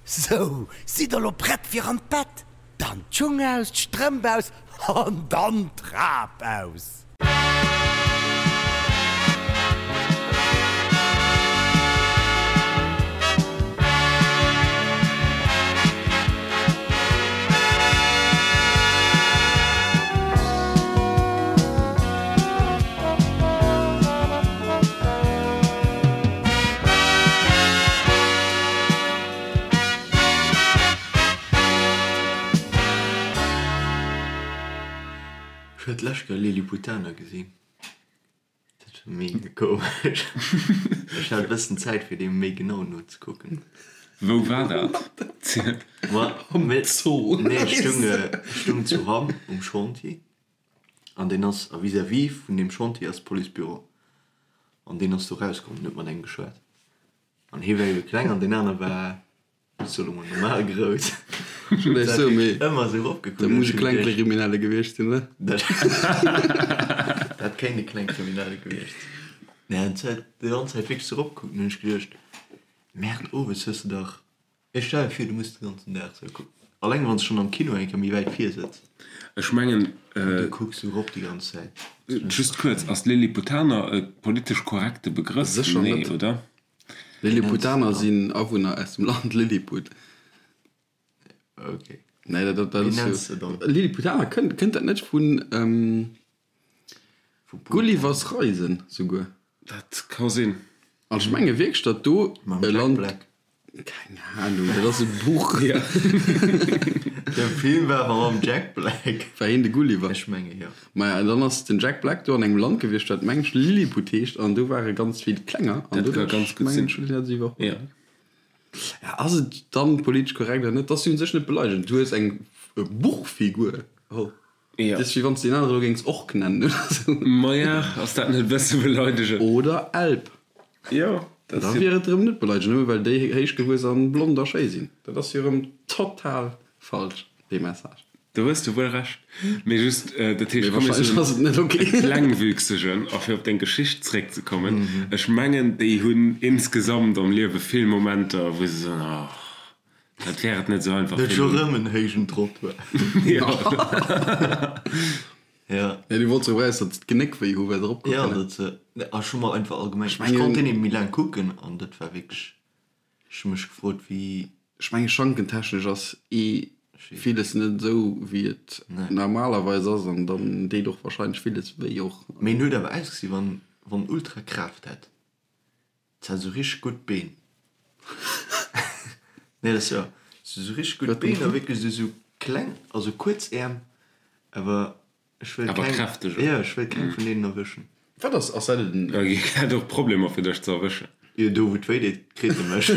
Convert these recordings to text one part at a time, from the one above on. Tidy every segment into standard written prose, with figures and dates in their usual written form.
Sou, sidd der lo prett fir an d'Bett? Dann d'Schung aus, d'Strëmp aus an dann d'Trap aus! Ech huet d'lescht Kéier Lilliputaner gesinn. Dat war mega komesch. Ech hat e bëssen Zäit fir deem méi genau nozekucken. Wou war dat? Am Zoo. Nee, ech stung, ech stung zu Hamm um Chantier an deen ass, a vis-à-vis vun deem Chantier ass d'Policebüro an deen ass do rauskomm an huet mat engem geschwat an hie war ebe kleng an deen aner war Ech soe lo mol normal grouss. Ech wollt eréischt soen, mee Ëmmer esou eropgekuckt. Dat muss e Klengkriminelle gewiescht sinn, oder? Dat kéint e Klengkriminelle gewiescht sinn. Nee, an huet déi ganz Zäit wierklech esou eropgekuckt an hunn ech geduecht, Merde, owes hues de dach, ech stell mir vir, du muss de ganzen Dag esou kucken. Alleng wann s de schonn am Kino eng Kéier méi wäit vir sëtz. Ech mengen. An du kucks esou erop déi ganz Zäit. Just kuerz, ass Lilliputaner e politesch korrekte Begrëff? Sécher Nee, net. oder? Lilliputaner sinn Awunner aus dem Land Lilliput. Ok. Nee, dat, dat, dat Wéi ass nenns jo. de dann? Lilliputaner, kënnt, kënnt dat net vun Vu Putin? Gullivers Reisen souguer? Dat ka sinn. An ech menge wierklech, datt do Mam e Jack Land. Black. Keng Ahnung, dat ass e Buch. De Film war awer mam Jack Black. War hien de Gulliver? Ech menge jo. Maja, an dann ass den Jack Black do an engem Land gewiescht, dat meng ech Lilliput heescht, an do ware ganz vill Klenger, an Dat ka doduerch ganz gutt mengen sinn. ech hunn dat iwwerholl. Jo. Ja, ass et dann politesch korrekt oder net? Dat ass jo un sech net beleidegend. Du hues eng Buchfigur geholl. Jo. Dat ass wéi wann s de deen anere elo géings Ork nennen oder sou. Maja, ass dat net e bësse beleidegend? Oder Elb. Jo, dat Da ass jo. wier et erëm net beleidegend, nëmme well déi héich gewuess an blond a schéi sinn. Dat ass jo erëm total falsch, dee Message. Do hues de wuel Recht. Mee just, dat heescht, Mee komm mir wahrscheinlech soen ass et net ok. e Klengwüchsegen, a fir op deng Geschicht zréckzekommen, ech mengen, déi hunn insgesamt am Liewe vill Momenter, wou se soen, oh, dat wär et net esou einfach Net fir scho elo. rëm en héijen Trottoir. Jo. Ja. Nee, du wollts erop eraus, datt se d'Genéck wéi hu well se eropkucken. Ja, dat se, a scho mol einfach allgemeng, ech mengen- konnt deen eben méi laang kucken an dat war wierklech, ech hu mech gefrot wéi. Ech menge schankentechnesch ass ee villes net esou wéi et normalerweis ass an dann deet och wahrscheinlech villes wéi och. Mee en huet awer ausgesi wann wann ultra Kraaft hätt. Se hat esou richteg gutt Been. Nee, dat ass jo sou richteg gutt Been a wierklech esou sou kleng, also kuerz Äerm, awer ech wëll Awer keng, kräfteg, jo, ech wëll keng vun deenen erwëschen. Wat ass, ass dat en. Da hätt och Problemer fir dech ze erwëschen. Jo, do wou et wéi deet, kritt e mech.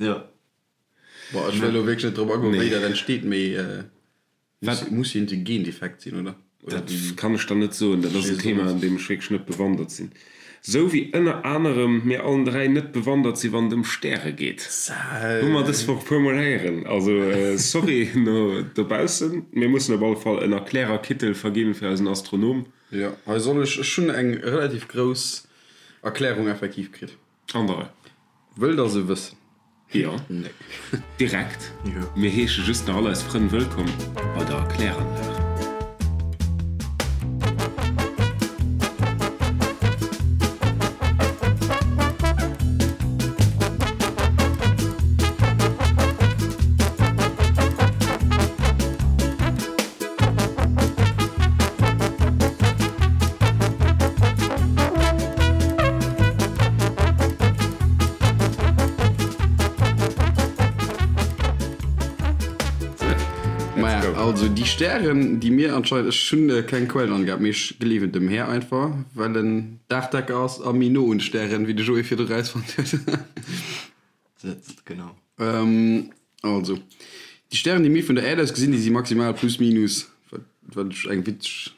Jo. Boah, ech wëll elo wierklech net drop agoen, wéi dat entsteet, mee. Wat? Muss jo en Gendefekt sinn, oder? Dat kann ech der net soen. Dat ass en Thema, an deem ech wierklech net bewandert sinn. Sou wéi ënner anerem mir allen 3 net bewandert si wann et ëm Stäre geet. Hu mer dës Woch puer mol héieren. Also sorry no dobaussen. Mir mussen op alle Fall en Erklärerkittel verginn fir eisen Astronom. Jo, hei soll ech, ech hunn eng relativ grouss Erklärung effektiv kritt. An der Rei. Wëllt der se wëssen? Jo, Nee. direkt. Jo. Mir heesche just nach all eis Frënn wëllkomm bei der Erkläranlag. Maja, also déi Stären, déi mir anscheinend, ech hunn keng Quellenangabe, mee ech gleewen dem Här einfach, well en Daachdecker ass a méi no un de Stären, wéi de Joé virdru rausfonnt huet. Sëtzt, genau. Also, déi Stären, déi mir vun der Äerd aus gesinn, déi si maximal plus minus, wat, wat ech eng witzeg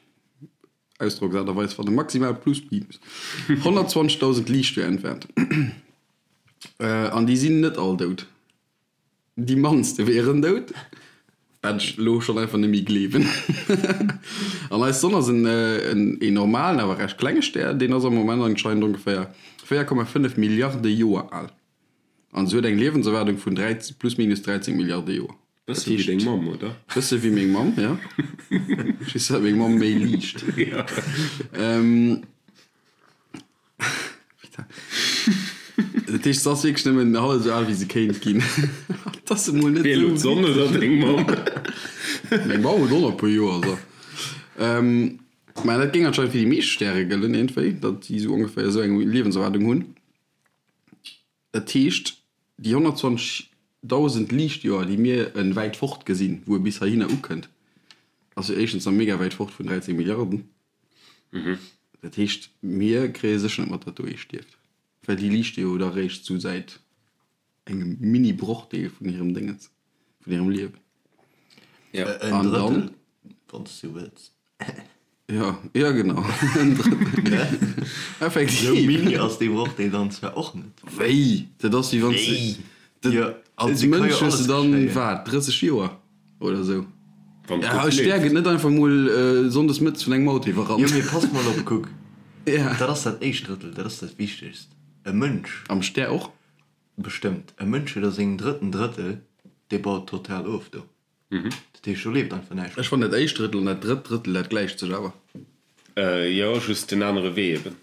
Ausdrocksaart a Weis fannen, maximal plus minus 120.000 Liichtjoer entfernt. An déi sinn net all dout. Déi mannste wieren dout, wat ech elo schonn einfach net méi gleewen. An eis Sonn ass en en normalen, awer recht klenge Stär, deen ass am Moment anscheinend ongeféier 4,5 Milliarde Joer al. An se huet eng Liewenserwaardung vun 13, plus minus 13 Milliarde Joer. Bësse wéi deng Mamm, oder? Bësse wéi meng Mamm, ja. Just dat meng Mamm méi liicht. Dat heescht, se ass wierklech nëmmen hallef esou al, wéi se kéint ginn. Dat ass emol net esou. Wéi elo d'Sonn oder deng Mamm? Meng Mamm huet och nach e puer Joer, so. Mä dat géing anscheinend fir déi meescht Stäre gëllen, iergendwéi, datt déi esou ongeféier esou eng Liewenserwaardung hunn. Dat heescht, déi 120.000 Liichtjoer, déi mir e wäit fort gesinn, wou e bis heihinner ukënnt, ass jo éischtens nach mega wäit fort vun 13 Milliarden. Dat heescht, mir kréie sécher net mat, datt do ee stierft, well déi liichte jo da réischt sou säit engem Mini-Brochdeel vun hirem Déngens, vun hirem Liewen. En Drëttel, wann s du wëlls. Jo, jo genau, en Drëttel. Effektiv. Sou mini ass dee Brochdeel dann zwar och net. Wéi? Dat ass wéi wann s de als Mënsch hues de dann, wat, 30 Joer? Oder sou. Wann Ja, gutt e Stär leeft. gëtt net einfach mol sonndes mëttes vun engem Auto iwwerrannt. Jo, mee pass mol op, kuck, Ja. dat ass dat éischt Drëttel, dat ass dat Wichtegst. E Mënsch. Am Stär och? Bestëmmt. E Mënsch huet a sengem drëtten Drëttel, dee baut total of do. Dat heescht, do leeft einfach näischt Ech fannen dat éischt Drëttel an dat drëtt Drëttel, dat gläicht sech awer. Jo, just den anere Wee eben.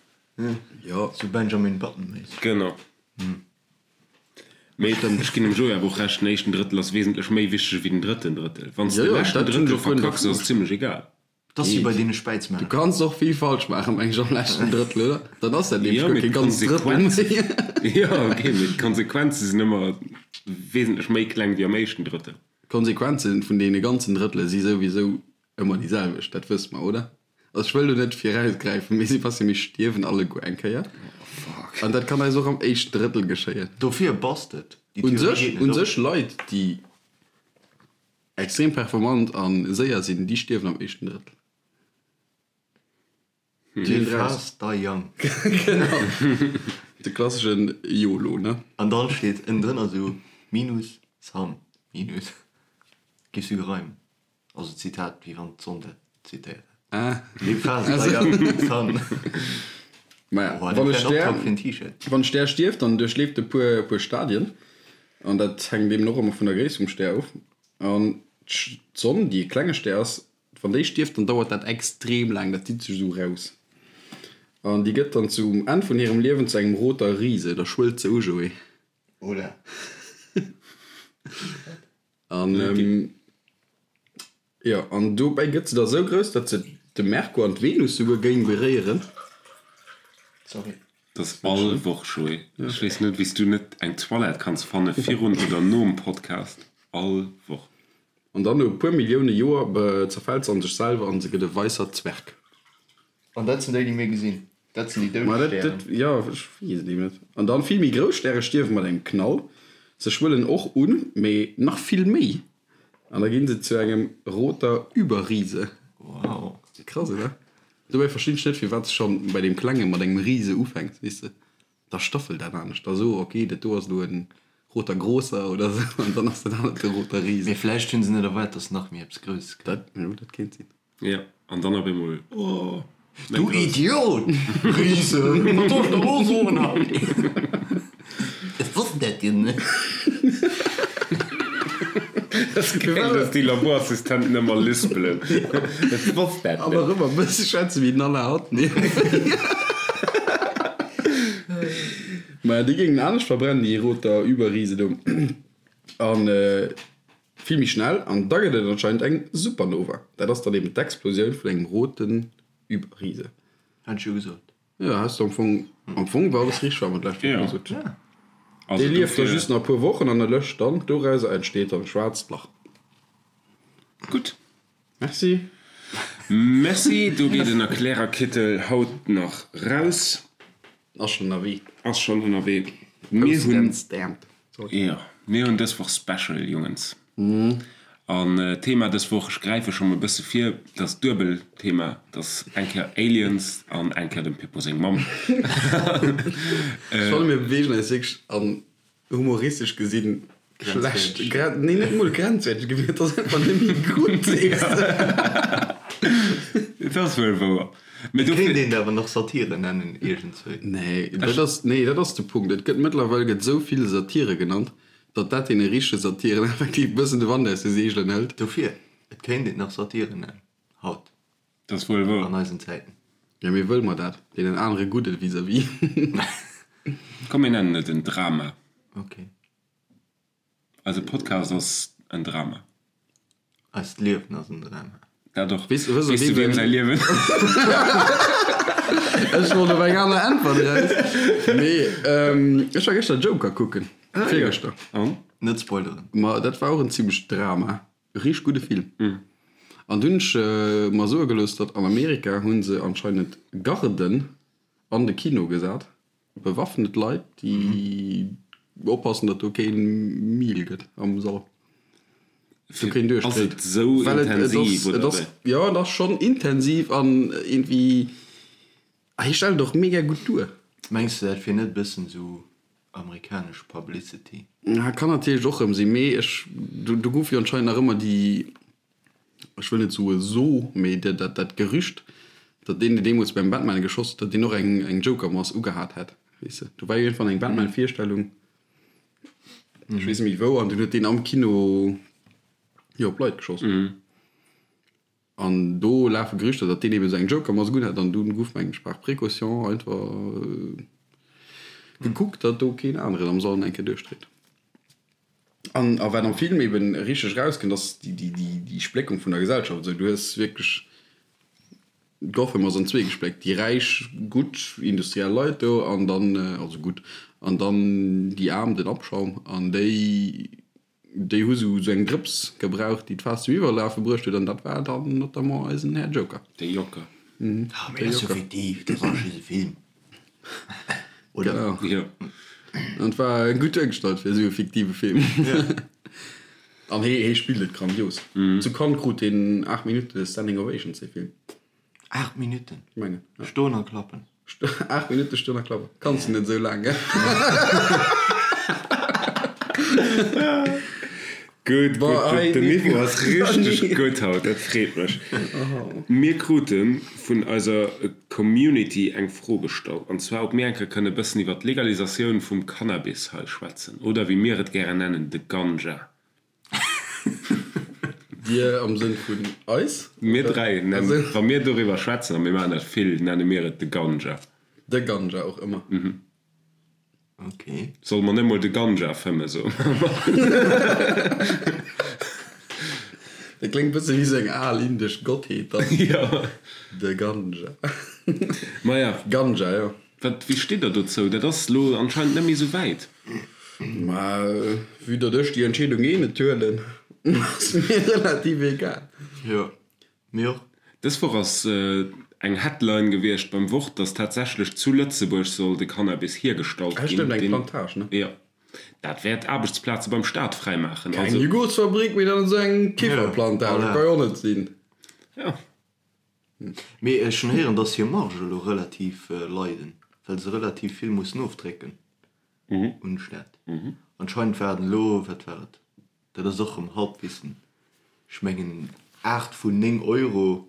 Jo. Sou Benjamin Button-méisseg. Genau. Mee ech ginn dem Joé awer och Recht, den éischten Drëttel ass wesentlech méi wichteg ewéi den drëtten Drëttel. Wann s de Jo, de jo, leschten dat hunn Drëttel ech och guer net verkacks, ass et zimlech egal. Dat ass wéi bei deene Du Späizmänner. kanns och vill falsch maachen, meng ech, am leschten Drëttel, oder? Dann ass dat nämlech Jo, guer mee kee ganzt Drëttel d'Konsequenzen, méi. jo, ok, mee d'Konsequenze sinn ëmmer wesentlech méi kleng wéi am éischten Drëttel. D'Konsequenze vun deene ganzen Drëttele si souwisou ëmmer déi selwecht, dat wësse mer, oder? Also ech wëll do net virausgräifen, mee Sébastien, mir stierwen alleguer eng Kéier. An dat kann eis och am éischten Drëttel geschéien. Dofir passt et. Déi Un Theorie sech, geet net un op. sech Leit, déi extrem performant a séier sinn, déi stierwen am éischten Drëttel. Live fast, die young. Genau. De klasseschen YOLO, ne? An dann steet ënnendrënner esou Minus, Sun, Minus. Giffs du gereimt. Also Zitat, wéi wann d'Sonn dat zitéiert hätt. Ah. Live fast, die young, Sun. Maja, Oh, wann e dat wär en Stär, Optrag fir en T-Shirt. wann e Stär stierft, dann duerchleeft e puer, puer Stadien. An dat hänkt eben och ëmmer vun der Gréisst vum Stär of. An d'Sonn, déi e klenge Stär ass, Wann déi stierft, dann dauert dat extrem laang, dat zitt sech esou raus. An déi gëtt dann zum Enn vun hirem Liewen zu engem roter Rise, da schwëllt se u, Joé. Oder? An jo, an dobäi gëtt se da sou grouss, datt se de Merkur an d'Venus souguer géing beréieren. Sorry. Dat ass all Woch, Joé. Ech weess net, wéi s du net eng Toilette kanns fanne virun oder nom Podcast. All Woch. An dann no e puer Millioune Joer zerfält se an sech selwer an se gëtt e weisser Zwerg. An dat sinn déi, déi mir gesinn. Dat sinn déi doud Ma dat, Stären. dat, jo, ech weess et eben net. An dann vill méi grouss Stäre stierwe mat engem Knall. Se schwëllen och un, mee nach vill méi. An da ginn se zu engem roter Überriese. Wow. Krass, oder? Dobäi verstinn ech net, firwat s schonn bei deem Klenge mat engem Riese ufänks, weess de? Da staffelt dat anescht, da so, ok, dat do ass elo en roter Großer oder sou, an dann ass dat anert de roter Riese. Mee vläicht hunn se net erwaart, dass nach méi eppes Grousses kënnt. Dat, jo, dat kéint sinn. Jo, an dann op eemol, oh, méi Du grouss. Idiot! Riese! Wat soll ech der elo soen hei? Ech wosst dat jo net. Dat ass geil, dass déi Laborassistenten ëmmer lispelen. Ech wosst dat An net. och ëmmer e bësse schwätze wéi den Alain Atten. Maja, déi géingen anescht verbrennen, déi roter Überriese do. An vill méi schnell. An da gëtt et anscheinend eng Supernova. Dat ass dann eben d'Explosioun vun engem roten Überriese. Hat ech jo gesot. Jo, has de am Fong, am Fong war alles richteg, wat mer d'lescht Woch gesot hunn. Also Dee lieft da dofir. just nach e puer Wochen an erlëscht dann. Dorauser entsteet dann e schwaarzt Lach. Gutt. Merci. Merci, do geet en Erklärerkittel haut nach raus. Ass schonn ënnerwee. Ass schonn ënnerwee. Mir Posted hunn. and stamped. Sorry. Jo, mir hunn dës Woch Special, Jongens. An d'Thema dës Woch, ech gräife scho mol e bësse vir, dat ass duebel Thema, dat ass eng Kéier Aliens an eng Kéier dem Pippo seng Mamm. Ech fanne mir beweegen eis wierklech an humoristesch gesinn schlecht, nee net mol grenzwäerteg Gebitt, et ass einfach net méi gutt, weess de. Et ass wuel wouer. Mee dofir. Kéint een awer nach Satire nennen iergendswéi. Nee, dat ass, nee, dat ass de Punkt. Et gëtt mëttlerweil gëtt esou vill Satire genannt, datt dat deene richtege Satiren effektiv e bëssen de Wand aus de Seegelen hëlt. Dofir, et kéint een nach Satire nennen, haut, Dat ass wuel wouer. an eisen Zäiten. Jo, mee wëlle mer dat? Deenen anere gudde vis-à-vis? Komm, mir nennen et en Drama. Ok. Eise Podcast ass en Drama. Eist Liewen ass en Drama. Dat och. Weess du wiem säi Liewen? Ech wollt op eng aner Äntwert eraus. Mee ech war gëschter Joker kucken. Virgëschter. An? Net spoileren. Ma dat war och en zimmlecht Drama. Richteg gudde Film. An dunn hunn ech mer soe gelooss, datt an Amerika hu se anscheinend Garden an de Kino gesat. Bewaffnet Leit, déi oppassen, datt do kee Mil gëtt am Sall. Do keen duerchdréit. Ass et esou intensiv, oder wéi? Jo, et ass schonn intensiv an iergendwéi, hie stellt et och mega gutt duer. Mengs de, dat wier net e bëssen esou amerikanesch Publicity? Kann natierlech och erëm sinn, mee ech, do gouf jo anscheinend nach ëmmer déi ech wëll net soe so, mee dat dat Gerücht, datt deen, deen deemools beim Batman geschoss huet, datt deen och eng eng Joker-Mask ugehat hätt, weess de. Do war jo iergendwann eng Batman-Virstellung, ech weess net méi wou, an dunn huet deen am Kino jo op Leit geschoss. An do lafe Gerüchter, datt deen eben esou eng Joker-Mask unhat, an dunn gouf, mengen ech, par précaution einfach gekuckt, datt do keen aneren am Sall eng Kéier duerchdréit. An a wat am Film eben richteg erauskënnt, ass déi Spléckung vun der Gesellschaft. Esou, du hues wierklech, Gotham ass an zwee gespléckt, déi räich, gutt industriell Leit do an dann, also gutt, an dann déi Aarm, den Abschaum. An déi, déi hu sou eng Drëps gebraucht, déi d'Faass zum Iwwerlafe bruecht huet, an dat war dann notamment eisen Här Joker. De Joker. Ah, mee dat ass jo fiktiv, dat ass just e Film. Oder? Genau. Jo. An et war gutt duergestallt fir esou e fiktive Film. An hee, hee spillt et grandios. Zu Cannes krut hien 8 Minutte Standing Ovations, dee Film. 8 Minutten? Ech mengen, ja. Stoen a klappen. 8 Minutte stoen a klappen. Kanns de net esou laang, gell? Gutt, gutt, gutt. Den Niveau ass richteg gutt haut, dat freet mech. Mir krute vun eiser Community eng Fro gestallt, an zwar ob mir eng Kéier kënne bëssen iwwer d'Legalisatioun vum Cannabis hei schwätzen, oder wéi mir et gären nennen, de Ganja. Dir am Sënn vun eis? Mir 3 nennen, wa mir doriwwer schwätzen, a mir maachen dat vill, nenne mir et de Ganja. De Ganja och ëmmer. Ok. Solle mer net mol de Ganja fëmmen, soe mer. Dat kléngt bësse wéi sou eng al indesch Gottheet dann. Jo. De Ganja. Maja. Ganja, jo. Wat, wéi steet der dozou? Dat ass lo anscheinend net méi sou wäit. Ma vue datt ech déi Entscheedung eh net huelen, ass mir relativ egal. Jo. Mir och. Dës Woch ass eng Headline gewiescht beim Wort, dass tatsächlech zu Lëtzebuerg soll de Cannabis hiergestallt ginn. Stëmmt, eng Plantage, ne? Jo. Dat wäert Aarbechtsplaze beim Staat fräimaachen. Keng Jugurtsfabrik, mee dann esou eng Kifferplantage, dat ka jo och net sinn. Jo. Mee ech hunn héieren, dass hir Marge elo relativ leiden, well se relativ vill mussen ofdrécken un de Staat. Anscheinend war et elo, wat war et, Dat ass och rëm Halbwissen. Ech mengen 8 vun 9 Euro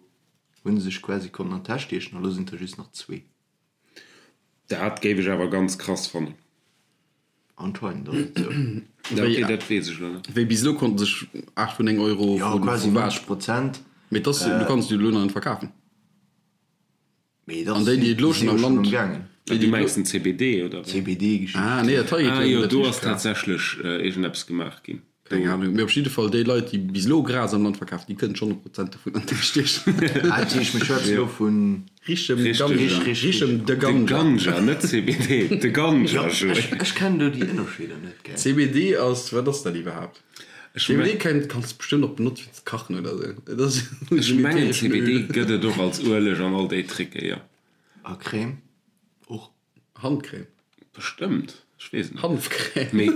hu se sech quasi konnten an d'Täsch stiechen, a lo sinn et der just nach zwee. Dat géif ech awer ganz krass fannen. Anscheinend ass et sou. Ok, dat weess ech elo net. Wéi bis elo konnte sech 8 vun 9 Euro Jo, quasi 90 Prozent. Mee et ass, du kanns et jo elo nach net verkafen. Mee An déi, déi et elo schonn am Land. Déi, Du mengs den CBD, oder wéi? CBD-Geschicht. Ah, nee, dat hei geet Ah jo jo, net do richteg ass klar. tatsächlech iergendeppes gemaach ginn. Keng Ahnung. Mee op jidde Fall, déi Leit, déi bis elo Gras am Land verkafen, déi kënnen schonn e Prozent dovun an d'Täsch stiechen. Ah, dat heescht, mir schwätzen elo vun. Richem Richteg. Ganja. Rich, Richem de De Ganja. Ganja, net CBD, de Ganja, Jo, Joé. ech, ech kennen do déi Ënnerscheeder net, gell. CBD ass, wat ass dat iwwerhaapt? Ech CBD kann, kanns de bestëmmt och benotze fir ze kachen oder sou. Et ass Ech en mengen äthereschen CBD Öl. gëtt et och als Ueleg an all déi Tricke, jo. A Crème och. Handcrème. Bestëmmt, ech weess et net. Hanfcrème. Mee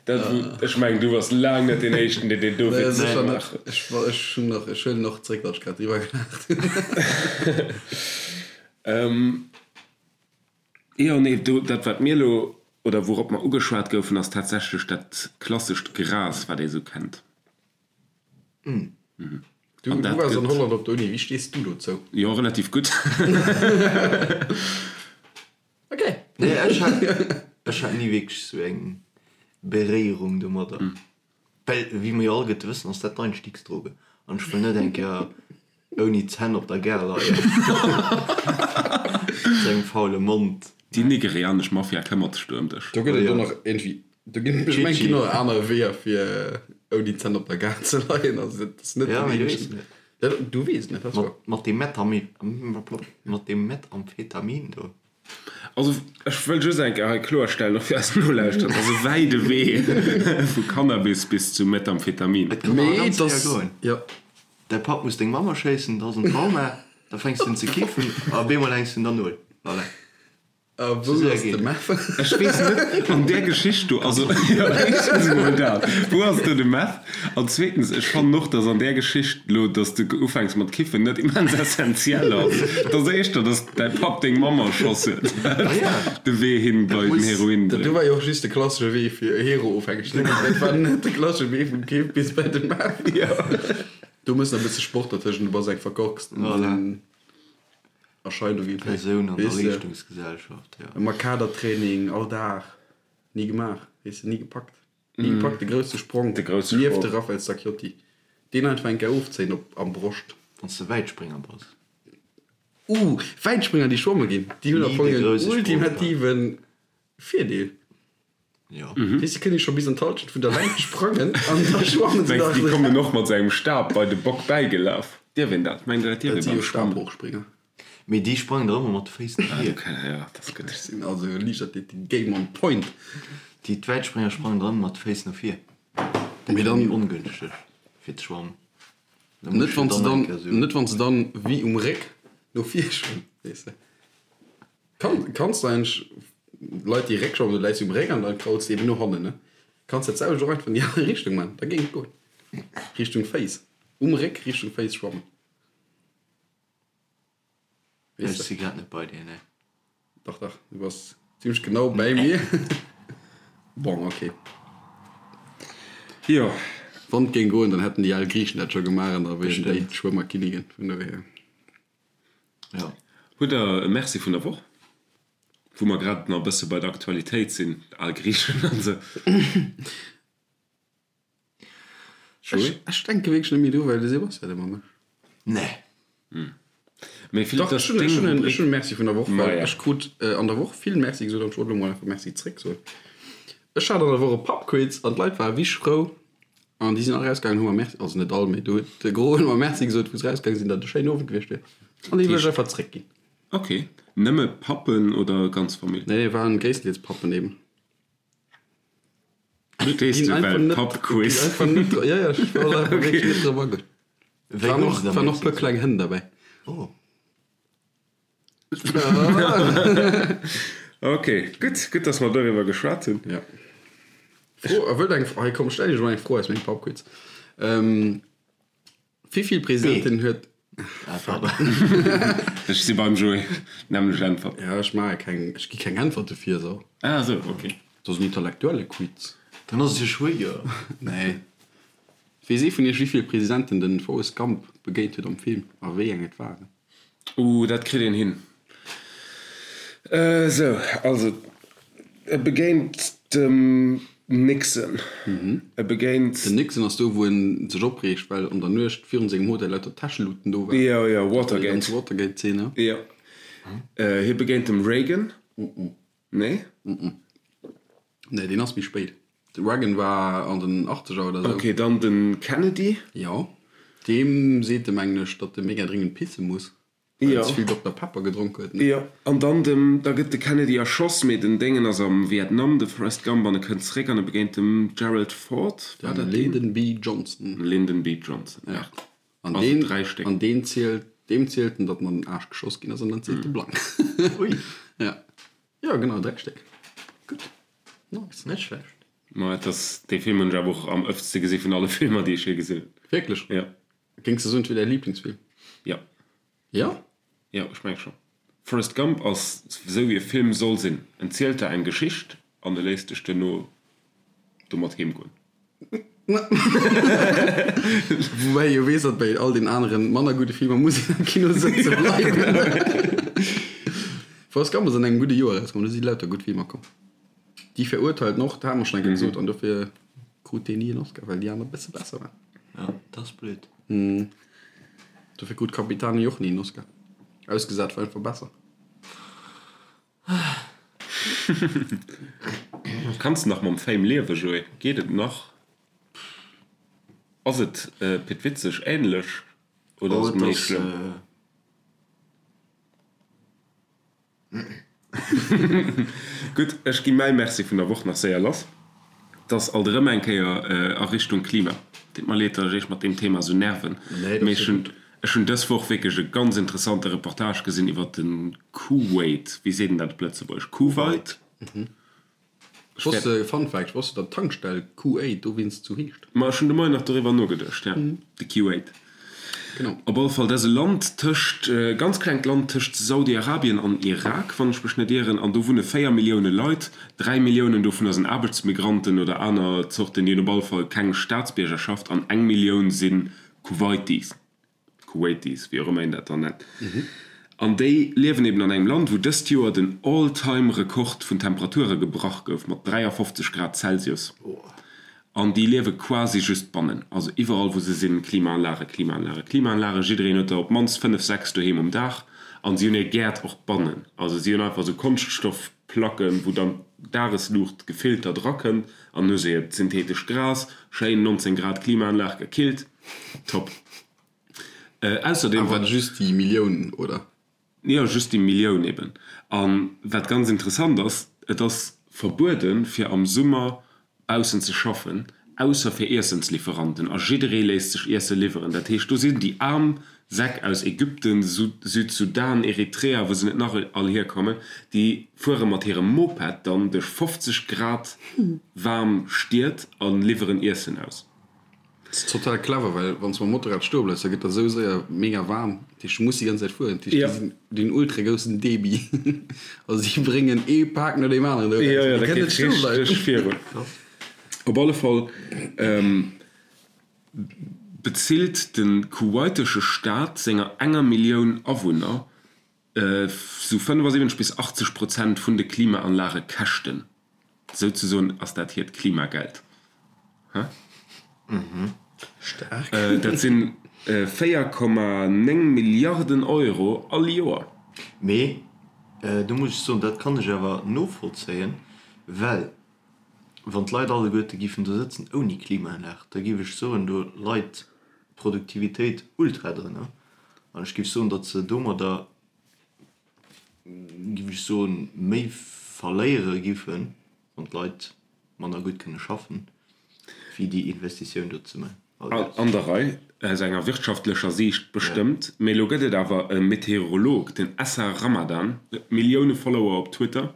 dat wou, ech mengen du bass laang net deen éischten deen deen do Nee, Witz sécher net. gemaach huet. Ech, ech hunn nach, ech huelen och zréck wat ech grad driwwer gelaacht hunn. Jo, nee, do, dat wat mir elo, oder wourop mer ugeschwat goufen, ass tatsächlech dat klassescht Gras, wat ee sou kennt. Du, du waars an Holland op der Uni, wéi stees du dozou? Jo, relativ gutt. Ok. Nee, ech hat, ech hat ni wierklech sou eng Beréierung domadder. Well, wéi mer jo alleguerte wëssen, ass dat d'Einstiegsdroge. An ech wëll net eng Kéier ouni Zänn op der Gare leien. Mat engem faule Mond. Déi nigerianesch Mafia këmmert sech do ëm dech. Do gëtt et och nach iergendwéi, do ginn, ech mengen, et ginn och aner Weeër fir ouni Zänn op der Gare ze leien. Also dat ass net Ja, den mee du weess eenzegen. net. Ja, du weess net, dat ass wouer. Mat deem Metami, mat deem Methamphetamin do. Also ech wëll just eng Kéier hei kloerstellen, och fir eis Nolauschterer, et ass e wäide Wee vu Cannabis bis zu Methamphetamin. Et kann awer Mee ganz et séier ass, goen. jo. Däi Papp muss deng Mamm erschéissen, da ass en Trauma, da fänks du un ze kiffen a op eemol hänks du un der Null. Voilà. A Sou wou séier ass geet de et. Meth? Ech weess net, an där Geschicht do, also jo, éischtens emol dat, wou ass do de Meth? An zweetens, ech fannen och, dass an där Geschicht elo, dass de ufänks mat kiffen, net immens essentiell ass. Et ass éischter, dass däi Papp deng Mamm erschoss huet, wat de Wee hin bei den Heroin Dat do bréngt. war jo och just de klassesche Wee fir Hero-ofhängeg ze ginn. Dat war net de klassesche Wee vum Kiff bis bei de Meth. Do muss nach e bësse Sport dertëschent, du bass eng verkorkst Erscheinung iergendwéi. Persoun an der Weess de? Leeschtungsgesellschaft, jo. Ëmmer Kadertraining, all Dag. Ni gemaach, weess de, ni gepackt. Ni gepackt, de grousse Sprong De grousse nieft Sprong. de Raphael Stacchiotti. Deen einfach eng Kéier ofzéien op am Broscht. Wann s de Wäitspringer bass. Uh, Wäitspringer déi schwamme ginn, déi hunn am Ni Fong de en grousse Sprong, ultimativen Virdeel. Jo. Weess, déi kënne scho bis an d'Halschent vun der Längt sprangen an da schwammen se Mengs nach. de, déi kommen och mat sou engem Stab bei de Bock bäigelaf? Dierf een dat? Mengt der, dat dierf Dat ee si beim jo Schwammen? Stabhochspringer. Mee déi sprangen der ëmmer mat de Féiss no Ah, vir. du kenn, ja, dat ass gutt. Ech sinn also Liichtathletik Game on point. Déi d'Wäitspringer sprangen der ëmmer mat de Féiss no vir. Dat Mee ass dann. méi ongënschteg fir ze schwammen. Da Net muss wann du se dann dann, eng Kéier sou. net wann se dann wéi um Réck no vir schwammen, weess de. Kann, kanns du eigentlech Leit déi Réck schwammen, du läis um Réck an dann krauls de eben no hannen, ne? Kanns dat selwecht och einfach an déi aner Richtung man, da géing et goen. Richtung Féiss, um Réck Richtung Féiss schwammen. Ech si grad net bei dir, nee. Dach, dach, du bass zimlech genau bäi mir. Bon, ok. Jo. Wann et géing goen, dann hätten déi al Griichen dat scho gemaach an da wieren déi d'Schwëmmerkinnigin. Vun dohier. Jo. Hutt der e Merci vun der Woch? Wou mer grad nach e bësse bei der Aktualitéit sinn, al Griichen an esou. Ech, ech denke wierklech net méi dru, well de Sebastian ëmmer mécht. Nee. Mee Philippe, Dach, dat ech hunn, ass ech deng hunn en, Rubrik. ech hunn e Merci vun der Woch, well Maja. ech krut an der Woch vill Merci gesot an ech wollt elo mol einfach Merci zréck soen. Ech hat an der Woch e Pubquiz an d'Leit ware wéi frou an déi sinn all rausgaangen, hu mer Merci, also net all, mee do huet de Gros huet mer Merci gesot, wou se rausgaange sinn, datt et e schéinen Owend gewiescht wier. An déi wëll ech einfach zréckginn. Ok. Nëmme Pappen oder ganz Famill? Nee, waren gréisstendeels Pappen eben. Verstees du well Pubquiz? Ja, ja, ech war einfach wierklech net drop agoen. Wéi Waren gouf och, se da waren och Merci puer kleng Hënn derbäi. Oh. Ok, gutt, gutt, dass mer doriwwer geschwat hunn. Ja. Fro, a wëllt eng, hei komm, stell iech mol eng Fro aus mengem Pubquiz. Ähm, Wéi vill Presidenten huet. Ah, pardon. Ech si beim Joé, nämmlech Äntwert. Ja, ech maache keng, ech gi keng Äntwert dofir, so. Ah esou, ok. Dat ass en intellektuelle Quiz. Dann ass et jo schwéier. Nee. Weess ee vun iech, wéi vill Presidenten den Forrest Gump begéint huet am Film a wéi eng et waren? Uh, dat kritt een hin. Esou, also e begéint dem Nixon. E begéint. Den Nixon ass do, wou en sech opreegt, well an der Nuecht virun sengem Hotel lauter Täscheluten do waren. Jo, jo, Déi Watergate. ganz Watergate-Zeen, ja. Jo. Hie begéint dem Reagan. Nee? Nee, deen ass méi spéit. De Reagan war an den Achtzeger oder sou. Ok, dann de Kennedy. Jo. Deem seet e, mengen ech, datt e mega dringend pisse muss. Well Jo. en ze vill Dokter Pepper gedronk huet, ne? Jo, an dann dem, da gëtt de Kennedy erschoss, mee den Déngen ass am Vietnam, de Forrest Gump, an e kënnt zeréck an e begéint dem Gerald Ford, war Den dat deen? Lyndon B. Johnson. Lyndon B. Johnson, Ja. merde. An Also deen, 3 Stéck. an deen zielt, deem zielt en, datt en an den Aarsch geschoss ginn ass, an dann zielt e blank. Ui. Ja. Jo, genau, 3 Stéck. Gutt. Nice. Net schlecht. Ma et ass, dee Film hunn ech awer och am ëftste gesi vun alle Filmer, déi ech je gesinn hunn. Wierklech? Ja. Géings de soen, et wier däi Liblingsfilm? Ja. Ja? Jo, ech menge scho. Forrest Gump ass esou wéi e Film soll sinn, en zielt der eng Geschicht an e léisst dech duerno domat heem goen. Woubäi ee jo weess, datt bei all den aneren manner gudde Filmer muss een am Kino sëtze bleiwen. Forrest Gump ass an engem gudde Joer erauskomm, do si lauter gutt Filmer komm. Die Verurteilten och, dat hate mer schonn eng Kéier gesot, an dofir krut deen ni en Oscar, well déi aner e bësse besser waren. Ja, dat ass blöd. Dofir krut Capitani och ni en Oscar. Ausgesat war einfach besser. Kanns de nach mam Fame liewen, Joé? Geet et nach? Ass et Pit Witzeg ähnlech oder ass et méi schlëmm? Gutt, ech gi mäi Merci vun der Woch nach séier lass. 't ass alt erëm eng Kéier a Richtung Klima. Deet mer leed, datt ech iech mat deem Thema esou nerven, mee ech hunn ech hunn dës Woch wierklech e ganz interessante Reportage gesinn iwwer de Kuwait. Wéi seet een dat op Lëtzebuergesch? Kuwait? Ech wosst, Fun Fact, ech wosst, datt d'Tankstell Q8 dowéinst sou heescht. Ma ech hunn de Moien nach doriwwer nogeduecht, ja, de Q8. Genau. Op alle Fall, dat ass e Land tëscht, e ganz klengt Land tëscht Saudi-Arabien an Irak, wann ech mech net ieren, an do wunne 4 Millioune Leit. 3 Milliounen dovunner sinn Aarbechtsmigranten oder aner Zorten, déi hunn op alle Fall keng Staatsbiergerschaft, an eng Millioun si Kuwaitis. Kuwaitis, wéi och ëmmer een dat dann nennt. An déi liewen eben an engem Land, wou dëst Joer den All-Time-Rekord vun Temperature gebrach gouf, mat 53 Grad Celsius. An déi liewe quasi just bannen. Also iwwerall, wou se sinn, Klimaanlage, Klimaanlage, Klimaanlage. Jiddereen huet der op d'mannst 5, 6 doheem um Daach. An si hunn hir Gäert och bannen. Also si hunn einfach esou Konschtstoffplacken, wou dann d'Dagesluucht gefiltert erakënnt. An hu se hiert syntheetescht Gras, schéin 19 Grad Klimaanlag, gekillt. Top. Ausserdeem. Awer just déi Millioun, oder? Jo, just déi Millioun eben. A wat ganz interessant ass, et ass verbueden, fir am Summer baussen ze schaffen, ausser fir Iessenslieferanten. A jidderee léisst sech Iesse liwweren. Dat heescht, do sinn déi aarm Säck aus Ägypten, Südsudan, Eritrea, wou se net nach all hierkommen, déi fuere mat hirem Moped dann duerch 50 Grad waarm Stied a liwweren Iessen aus. Dat ass total clever, well wann s de mam Motorrad stoe bleifs, da gëtt der esou séier mega waarm. Dat heescht, du muss déi ganz Zäit fueren. Dat heescht, déi sinn, déi hunn ultra groussen Debit. Also déi bréngen ee Pak no deem aneren do eraus. Jo, jo, Déi dat kënnen net geet stoe bleiwen. richteg virun. Op alle Fall bezilt de kuwaitesche Staat senger enger Millioun Awunner sou 75 bis 80 Prozent vun de Klimaanlagekäschten. Souzesoen ass dat hiert Klimageld. Hä? Staark. Dat sinn 4,9 Milliarden Euro all Joer. Mee do muss ech soen, dat kann ech awer novollzéien, well wann d'Leit alleguerte giffen do sëtzen ouni Klimaanlag, da giff ech soen, do leit d'Produktivitéit ultra drënner. An ech giff soen, datt se domadder, giff ech soen, méi verléiere giffen, wann d'Leit manner gutt kënne schaffen, wéi déi Investitioun do ze man. An der Rei, aus enger wirtschaftlecher Siicht bestëmmt. Mee elo gëtt et awer e Meteorolog, den Essa Ramadan, huet Millioune Follower op Twitter,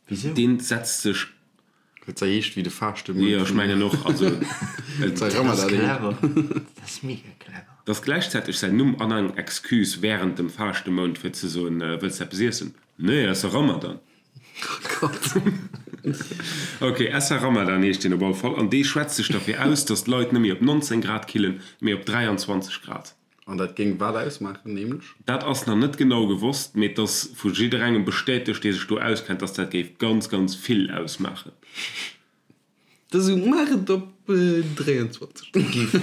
Wisou? Deen setzt sech. Well et heescht wéi de Faaschte-Mount. Jo, ech mengen och. Also, et Dat ass clever. Dat ass mega clever. Et ass gläichzäiteg säin Numm an eng Excuse wärend dem Faaschte-Mount fir ze soen, Wëlls de eppes iessen? Nee, ass e Ramadan. Ok, Essa Ramadan heescht deen op alle Fall an dee schwätzt sech derfir aus, datt d'Leit net méi op 19 Grad killen, mee op 23 Grad. An dat géing wat ausmaachen, nämlech? Dat ass nach net genau gewosst, mee et ass vu jidderengem bestätegt, dee sech do auskennt, dass dat géif ganz, ganz vill ausmaachen. Da sou, maach et op 23.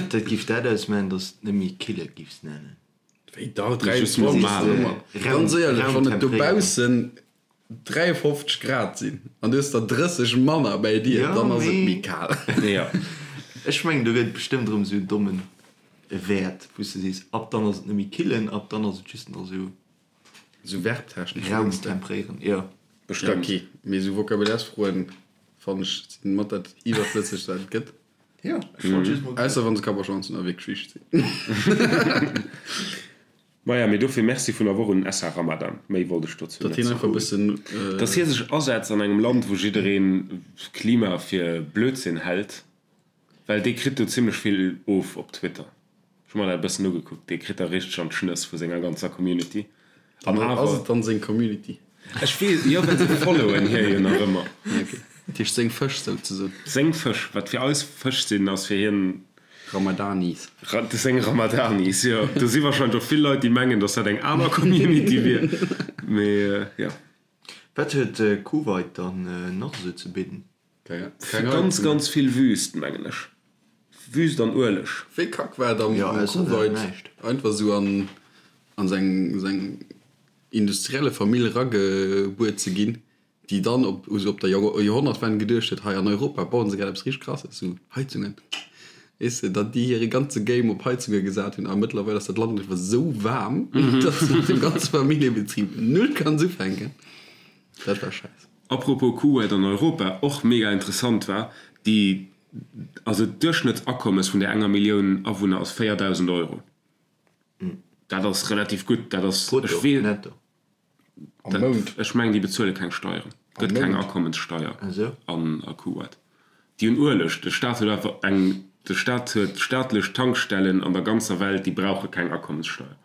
Dat géif dat ausmaachen, dass et net méi kille giffs nennen. Wéi dach, 23 ass ëmmer. Ganz éierlech, wann et dobaussen 53 Grad sinn an du hues der 30 manner bäi dir, dann ass et méi kal. Jo. Ech mengen do gëtt et bestëmmt erëm esou en dommen Wäert wou s de sees, ab dann ass et net méi killen, ab dann ass et just nach esou. Esou verbtechnesch mengst de? Raumtempréieren, jo. Bestëmmt. Ok, mee esou Vocabulairesfroen fannen ech sinn mat dat iwwerflëssegst wat et gëtt. Jo, ech wollt just mol. Ausser wann se Kapp a Schwanz hunn a wierklech wichteg sinn. Maja, mee dofir Merci vun der Woch un den Essa Ramadan. Méi wollt ech dozou Datt net hien einfach e soen. bëssen. Datt hie sech asetzt an engem Land, wou jiddereen Klima fir Blödsinn hält, well dee kritt do zimlech vill of op Twitter. Ech hu mer dat e bëssen ugekuckt, dee kritt da richteg an d'Schnëss vu senger ganzer Community. An Ass awer. et dann seng Community? Ech weess, jo, well se followen hie jo nach ëmmer. Ok. Dat heescht seng Fësch souzesoen. Seng Fësch. Wat fir eis Fësch sinn, ass fir hien. Ramadanis. Seng Ramadanis, jo. Do si warscheinlech och vill Leit, déi mengen, datt dat eng aner Community wier. Mee jo. Wat huet Kuwait dann nach esou ze bidden? Ganz, ganz vill Wüst, mengen ech. Wüst an Ueleg. Wéi kack war et am Kuwait einfach esou an seng industrielle Famill eragebuer ze ginn, déi dann op esou op der Joerhonnertwend geduecht huet, hei an Europa bauen se grad eppes richteg Krasses, esou Heizungen, weess de, datt déi hire ganze Game op Heizunge gesat hunn a mëttlerweil ass dat Land einfach esou waarm, datt s de mat dem ganze Familljebetrib null kanns ufänken. Dat war schäiss. Apropos Kuwait an Europa, och mega interessant war déi, also d'Duerchschnëttsakommes vun där enger Millioun Awunner ass 4.000 Euro. Dat ass relativ gutt, dat ass, ech Brutto, netto? Am Mount? Ech mengen, déi bezuele keng Steieren. Et gëtt keng Akommenssteier an a Kuwait. Déi hunn Ueleg. De Staat huet einfach eng, de Staat huet staatlech Tankstellen an der ganzer Welt, déi brauche keng Akommenssteier.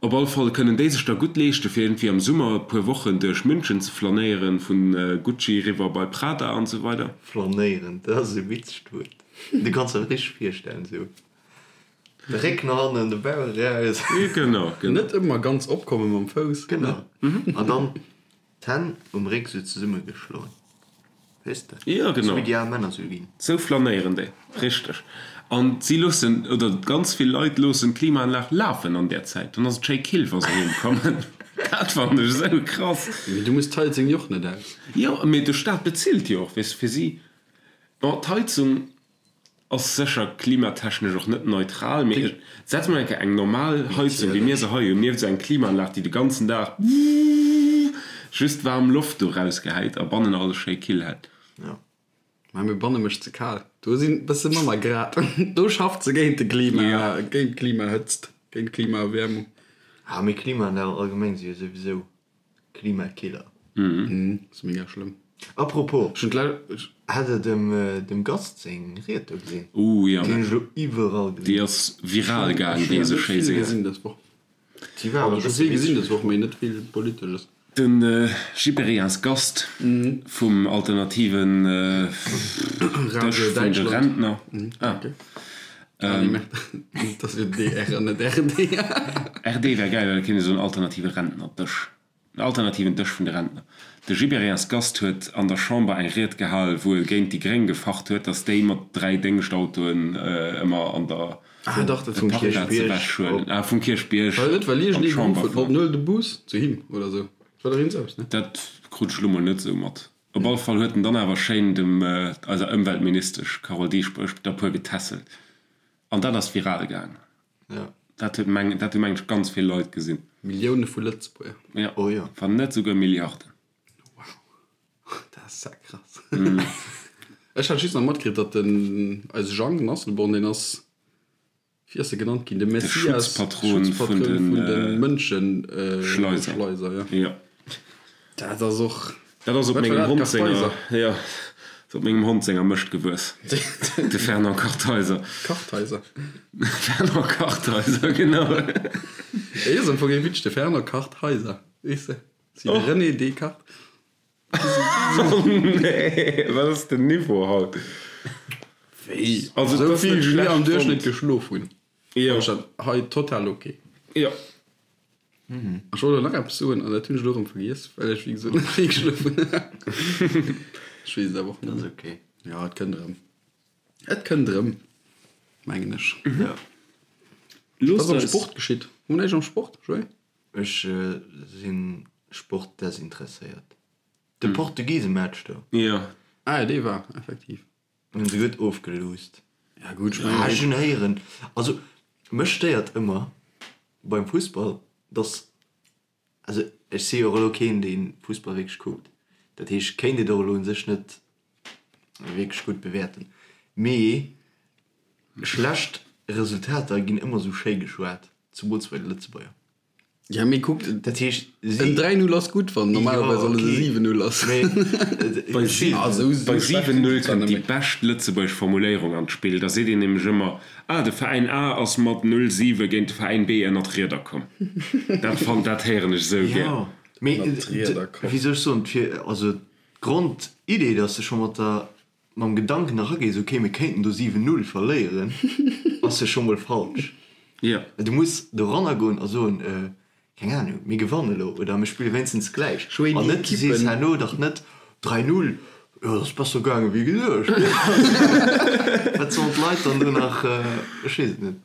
Op all Fall kënnen déi sech da gutt leeschte fir iergendwéi am Summer e puer Wochen duerch München ze flanéieren, vu Gucci eriwwer bei Prada an esou weider. Flanéieren, dat ass e witzegt Wuert. Du kanns der richteg virstellen, esou De Réck no hannen, de Bauch eraus. Genau, genau. Net ëmmer ganz opkomme mam Fouss. Genau. An dann d'Hänn um Réck sou zesummegeschloen. Weess de? Jo, genau. Sou wéi déi al Männer sou ginn. Sou flanéieren déi. Richteg. An si loossen, oder ganz vill Leit loossen d'Klimaanlag lafen an där Zäit. Dann ass et schéi kill, wa se heem kommen. Dat fannen ech esou krass. Mee du muss d'Heizung jo och net aus. Jo, mee de Staat bezilt jo och, weess de, fir si. Bon, d'Heizung. Ass sécher klimatechnesch och net neutral, mee ech setz mol eng Kéier eng normal Heizung, wéi mir se hei hunn, nieft esou eng Klimaanlag, déi de ganzen Dag just waarm Loft do rausgehäit a bannen alles schéi kill hält. Jo, mä mir banne mécht ze kal. Do sinn bësse manner Grad. Do schafft se géint de Klima, géint d'Klimahëtzt, géint d'Klimaerwäermung. Ah, mee Klimaanlagen allgemeng si jo souwisou Klimakiller. Ass mega schlëmm. Apropos, hat der dem Gast seng Ried do gesinn? Ooh jo, Déi hunn ech elo iwwerall gesinn. Déi ass viral gaang, wéi ee sou schéi seet. Gesinn dës Woch. Déi war awer Ech hu vill gesinn dës Woch, mee net vill Politesches. De Gibéryen Gast vum alternativen Dësch vun de Rentner. Ah. Dat ass jo DR an net RD. RD wär gäil, well da kéint ee soen alternative Rentnerdësch. En alternativen Dësch vun de Rentner. De Gibéryen's Gast huet an der Chamber eng Ried gehal, wou e géint déi Gréng gefacht huet, datt déi mat 3 Déngschtautoen ëmmer an der Ah dach, dat vum Parkplaz ewech huelen. Ah, vum Kierchbierg War dat net, well an iergendee geruff d'Chamber huet, fueren. Huel de Bus zu him oder esou? Dat war dach iergends eppes, ne? Dat krut ech elo mol net esou mat. Op alle Fall huet en dann awer schéin dem eiser Ëmweltministesch Carole Dieschbourg der puer getässelt. An dat ass viral gaang. Dat huet meng, dat hu meng ech ganz vill Leit gesinn. Millioune vu Lëtzebuerger. Jo, wann net esouguer Milliarden. Wow, dat ass ja krass. Ech hat just nach matkritt, datt den eise Jang, den Asselborn, deen ass Wéi ass e genannt ginn? De Messias, Schutzpatron vun de Mënscheschleiser. Jo. Dat ass och. Dat ass op mengem Hond senger, jo, ass op mengem Hond senger Mëscht gewuess. De Fernand Kartheiser. Kartheiser. Fernand Kartheiser, genau. Hie ass am Fong ee Witsch, de Fernand Kartheiser, weess de? Wéi de René Descartes. Oh nee, wat ass den Niveau haut? Wéi? Also Esou et ass vill net wéi mir am schlecht Duerchschnëtt fonnt. geschlof hunn, Jo. fand ech dat hei total ok. Jo. Ech wollt elo nach eppes soen an dat hunn ech elo erëm vergiess, well ech wéi gesot net vill geschlof hunn. Ech weess et awer och net Dat ass méi. ok. Jo, et kënnt erëm. Et kënnt erëm, mengen ech. Jo. Wat Loosst ass am eis. Sport geschitt? Hu mer näischt am Sport, Joé? Ech si sportdesinteresséiert. De Portugisematch do. Jo. Ah jo, dee war effektiv. Hunn se gutt ofgeluusst. Ja gutt, ech Ah, ech mengen. hunn héieren, also mech stéiert ëmmer beim Fussball, dass, also ech si jo och elo keen, dee Fussball wierklech kuckt, dat heescht, ech kéint et och elo u sech net wierklech gutt bewäerten, mee schlecht Resultater ginn ëmmer esou schéi geschwat, zemools bei de Lëtzebuerger. Ja, mee kuckt, Dat heescht, si. en 3-0 ass gutt, wann normalerweis Jo, alles e okay. 7-0 ass. Mee Bei si. Ah, sou, sou Bei schlecht sinn 7-0 se zwar kënnt net déi méi. bescht lëtzebuergesch Formuléierung an d'Spill. Da seet een nämlech ëmmer, Ah, de Veräin A ass mat 0-7 géint de Veräin B ënner d'Rieder komm. Dat fannt, dat héieren ech esou gär. Jo, mee Ënnert d'Rieder komm. wéi soll ech soen, fir, also. D'Grondidee, dass de scho mat der, mam Gedanken eragees, ok, mir kéinten do 7, 0 verléieren, ass jo scho mol falsch. Jo. Du muss doranner goen a soen, keng Ahnung, mir gewannen elo oder mir spille wéinstens gläich. An net, du sees herno dach net 3, 0, jo, dat ass besser gaange wéi geduecht. Wat sollen d'Leit dann do nach, ech weess et net.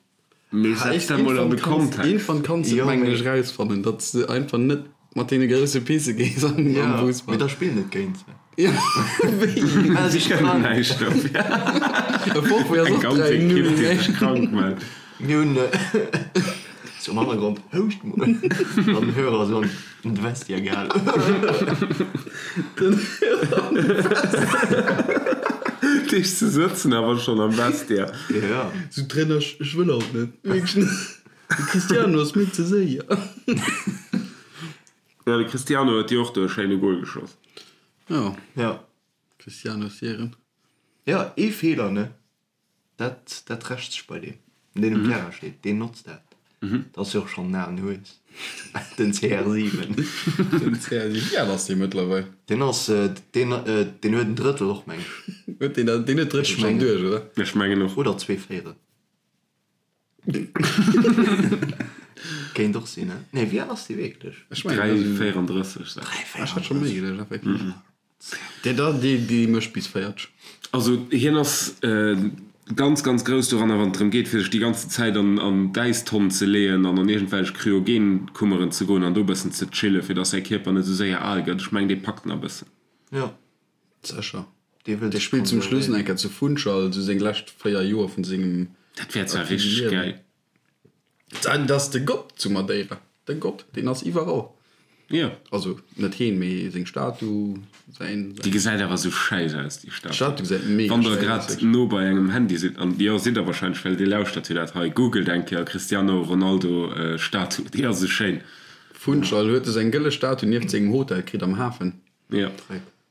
Mee setz dat mol an de Kontext. Iergendwann kanns de et mengen ech rausfannen, datt s de einfach net mat deene grousse Pisse gees am Fussball. Mee da spill net géint se. Jo, wéi? Mell sech krank. Kënnen näischt dofir. E Forfait ass Eng och ganz 3 Ekipp, 0, déi ne? sech krank mellt. Mir hunn zum Hannergrond, houscht mol, an den Hörer esou an de Vestiaire gehalen. Den Hörer an de Vestiaire. Deeg ze sëtzen awer schonn am Vestiaire. Jo. Sou Trainer, ech wëll haut net. Wierklech net. De Cristiano ass mir ze séier. Jo, de Cristiano huet jo och do e schéine Goal geschoss. Jo. Jo. Cristiano Siren. Jo, ee Feeler, ne? Dat, dat rächt sech bei deem, deen um Terrain steet, deen notzt dat. Dat ass jo och schonn en alen Hues, den CR7. Den CR7, wéi al ass dee mëttlerweil? Deen ass, deen, deen huet en Drëttel och, meng ech. Huet deen dat, deen huet d'Drëttel schonn duerch, oder? Ech mengen och. Oder 2 Véierel. Kéint och sinn, ne? Nee, wéi al ass dee wierklech? Ech mengen, 3,34 sag ech. Ech hat scho méi geduecht, effektiv. Dee da, dee, dee mécht bis 40. Also hien ass ganz, ganz grouss doranner, wann et drëm geet, fir sech déi ganzen Zäit an an d'Äistonn ze leeën an an iergendwelch Kryogenkummeren ze goen an do e bëssen ze chillen, fir dass säi Kierper net esou séier al gëtt. Ech mengen, dee packt nach e bëssen. Jo. Sécher. Dee wëll Dee sech spillt zum Schluss nach konservéieren. eng Kéier zu Funchal, esou seng lescht 4 Joer vun sengem Dat wär zwar aktive richteg Liewen. gäil. Dat ass de Gott zu Madeira. De Gott, deen ass iwwerall. Jo. Also net heen, mee seng Statu, säin. Déi gesäit awer sou schäiss aus, déi Statu. D'Statu gesäit mega Wann der schäiss aus, grad wierklech. no bei engem Handy sidd, an jo, sidd der wahrscheinlech, well dir lauschtert jo dat hei, googelt eng Kéier Cristiano Ronaldo Statu, déi ass sou schéin. Funchal huet e seng gëlle Statu nieft sengem Hotel kritt am Hafen. Jo.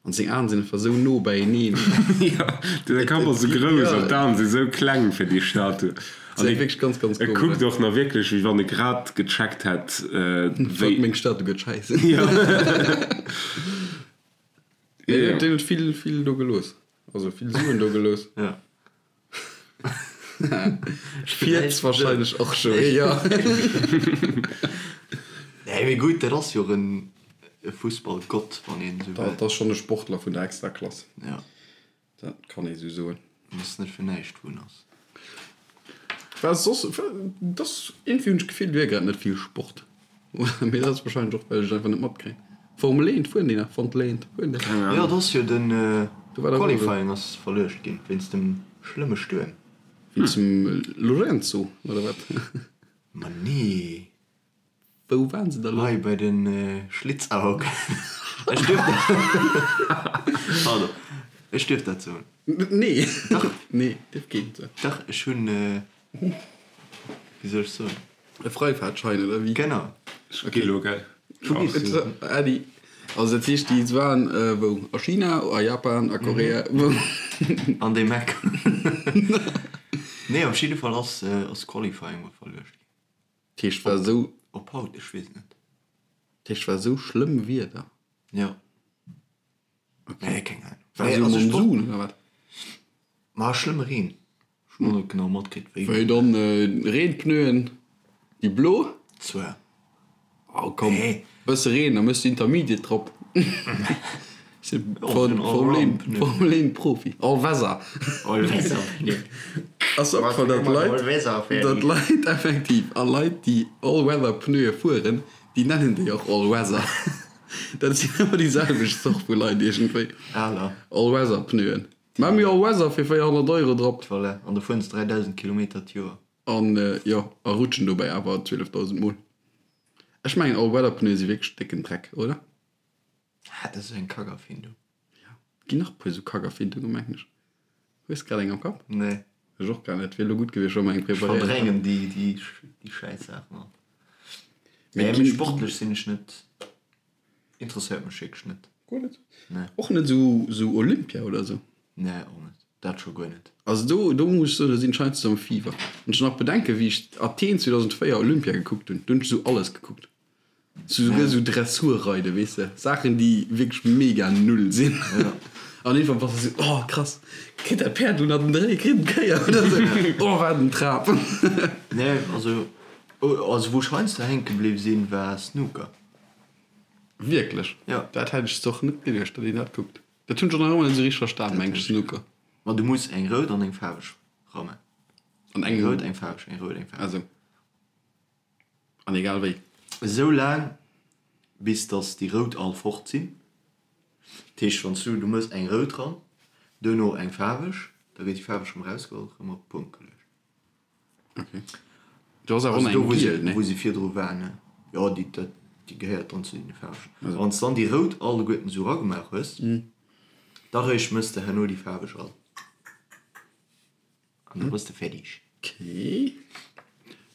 An seng Aen sinn einfach sou no beieneen. Jo, de Kapp ass sou grouss an d'Aen si sou kleng fir déi Statue. An hie wierklech ganz, ganz E kuckt och nach wierklech, wéi wann e grad gecheckt hätt, wéi. Meng Statue gëtt schäiss. Jo. Deen huet vill, vill do gelooss. Also vill Suen do gelooss. Jo. Fiert wahrscheinlech och scho, jo. Nee, mee gutt, dat ass jo och en Fussballgott, wann een esou wëll. Dat ass schonn e Sportler vun der Extraklass. Ja. Dat kann ee sou soen. En ass net fir näischt, wou en ass. Wat soss, dat ass, iergendwéi hunn ech d'Gefill, et wier grad net vill Sport. Mee dat ass wahrscheinlech och, well ech et einfach net matkréien. Formel 1, fueren déi nach? Formel 1, fueren déi? Keng Jo, Ahnung. et ass jo den Do war dach och Qualifying ass verluecht ginn wéinst dem schlëmme Stuerm. Wéinst dem Lorenzo, oder wat? Ma nee. Wou waren se da lo? Hei bei de Schlitzauge. Ech duerf Pardon. Ech duerf dat soen. Nee. Dach. Nee, dierf keen soen. Dach, ech hunn, wéi soll ech soen? E Freifahrtschein oder wéi? Genau. Ech gi lo, gell? Äddi. Also dat heescht, déi waren wou? A China, a Japan, a Korea, wou? An deem Eck. Nee, op jidde Fall ass ass Qualifying mol verluecht ginn. Dat heescht, war esou. Op haut, ech weess et net. Dat heescht, war esou schlëmm Wieder? Jo. Nee, keng Ahnung. War esou Monsun oder wat? Ma schlëmme Reen. Ech hunn och net genau matkritt wéi. Wéi dann Reenpneuen, déi blo? Zwar. Oh komm, bësse Reen, da méchs de Intermediate drop. Formel 1 Profi. All Weather. All Weather. Ass opgefall, datt Leit, datt Leit effektiv, a Leit déi All Weather Pneue fueren, déi nennen déi och All Weather. Dat sinn ëmmer déi selwecht Zort vu Leit iergendwéi. All Weather Pneuen. Mä mir all Weather fir 400 Euro drop. Voilà, an da fueren se 3000 Kilometer d'Joer. An jo, a rutschen dobäi awer 12.000 Mol. Ech mengen all Weather Pneue si wierklech décken Dreck, oder? Ah, dat ass eng Kackerfindung. Jo, ginn nach e puer esou Kackerfindungen, mengen ech. Hues grad eng am Kapp? Nee. Ech och gar net. Wier elo gutt gewiescht, wa mer eng Ech preparéiert hätten. verdrängen déi, déi, déi schäiss Saachen all. Mee Nee, mee sportlech sinn ech net. Interesséiert mech wierklech net. Guer net? Nee. Och net esou esou Olympia oder esou? Nee, och net. Dat scho guer net. Also do do muss ech soen, do sinn ech heiansdo am Fieber. Wann ech nach bedenken, wéi ech Athen 2004 Olympia gekuckt hunn, do hunn ech esou alles gekuckt. Souguer sou Dressurreiden, weess de, Saachen déi wierklech mega null sinn. An iergendwann bass de sou, oh krass, kritt dat Päerd elo nach den Dréi, kritt en d'Kéier oder sou, oh wat en Trap. Nee, also, also wou ech heiansdo hänke bliww sinn, war Snooker. Wierklech? Jo. Dat hätt ech och net geduecht, datt een dat kuckt. Dat hunn ech och nach ëmmer net sou richteg verstan, meng ech, Snooker. Ma du muss eng rout an eng faarweg rammen. An eng rout, eng faarweg, eng rout, eng faarweg. Also. An egal wéi. Esou laang bis dass déi rout all fort sinn. Dat heescht wann s du, du mëss eng rout ran, duerno eng faarweg, da gëtt déi faarweg rëm erausgeholl, rëm op d'Punkt geluecht. Ok. Do ass awer och nach eng giel, ne? Wou se virdru war, ne? Jo, déi, dat, déi gehéiert dann zu deene faarwegen. A wann s dann déi rout alleguerten esou eragemaach hues, da réischt mëss de herno déi faarweg all. An da bass de fäerdeg. Ok.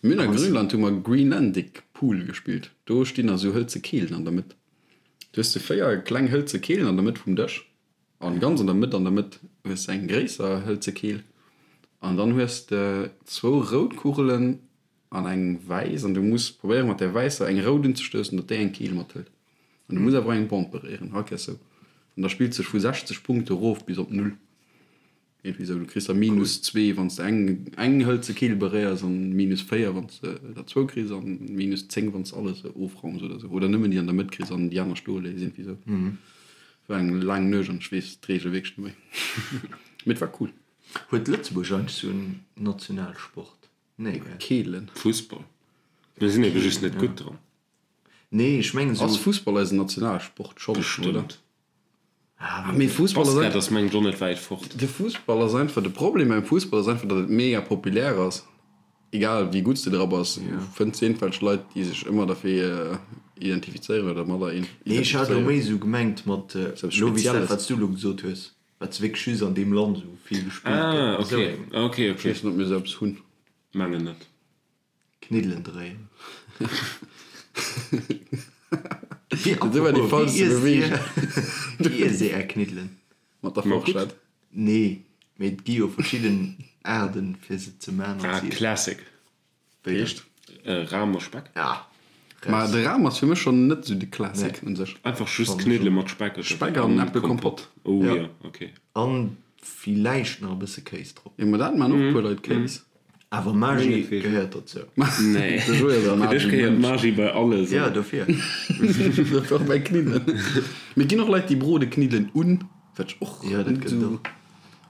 Mir hunn a Grönland hu mer Greenlandic Pool gespillt. Do stinn da sou hëlze Keelen an der Mëtt. Du hues sou 4 kleng hëlze Keelen an der Mëtt vum Dësch an ganz an der Mëtt an der Mëtt hues de eng gréisser hëlze Keel an dann hues de zwou rout Kugelen an eng wäiss an du muss probéieren mat där wäisser eng rout unzestoussen, datt déi eng Keel mathëlt. An du muss awer och eng Bomb beréieren, all Kéiers sou. An da spillt sech vu 60 Punkte rof bis op null. Iergendwéi esou, du kriss da minus zwee wann s de eng eng hëlze Keel beréiers an minus 4 wann s de der zwou kriss an minus 10 wann s de alles ofraums oder esou. Oder nëmmen déi an der Mëtt kriss an déi aner stoe léiss, iergendwéi esou. War eng laang Nuecht an ech weess d'Reegel wierklech net méi. Mee et war cool. Huet Lëtzebuerg eigentlech sou en Nationalsport? Nee, gell? Keelen. Fussball. Mir sinn ebe just net gutt dran. Nee, ech mengen esou. Ass Fussball eisen Nationalsport? Schonn, oder? Bestëmmt. Ah, mee Fussball ass Basket ass mengen ech och net wäit fort. De Fussball ass einfach, de Problem beim Fussball ass einfach, datt et mega populär ass. Egal wéi gutt s de dra bass, du fënns iergendwelch Leit, déi sech ëmmer derfir identifizéieren oder dermadder Nee, ech hat elo méi esou gemengt mat elo wéi s dat, wat s du elo gesot hues, wat s wierklech just an deem Land esou vill gespillt gëtt. Ah, ok, ok, ok. Ech weess net, ob mir esou eppes hunn. Mengen net. Kniddelen dréien. Dat war déi falschste Beweegung. Wéi iesst dir är Kniddelen? Mat der Forschett? Nee, mee et gi jo verschidden Aarten fir se ze man an ze iessen. Classic. Wéi dann? Ram a Speck. Ah, Ma de Ram ass fir mech schonn net esou de Classic un sech. Einfach just Kniddele mat Speck oder Speck an Äppelkompott. Oh jo, ok. An villäicht nach e bësse Kéis drop. Jo, ma dat man och e puer Leit, Kéis. Awer Magie gehéiert dozou. Nee, fir dech gehéiert Magie bei alles. Jo, dofir. Dofir och bei Kniddelen. Mee et ginn och Leit, déi brode Kniddelen un, wat ech och Jo, dat net gëtt esou. och.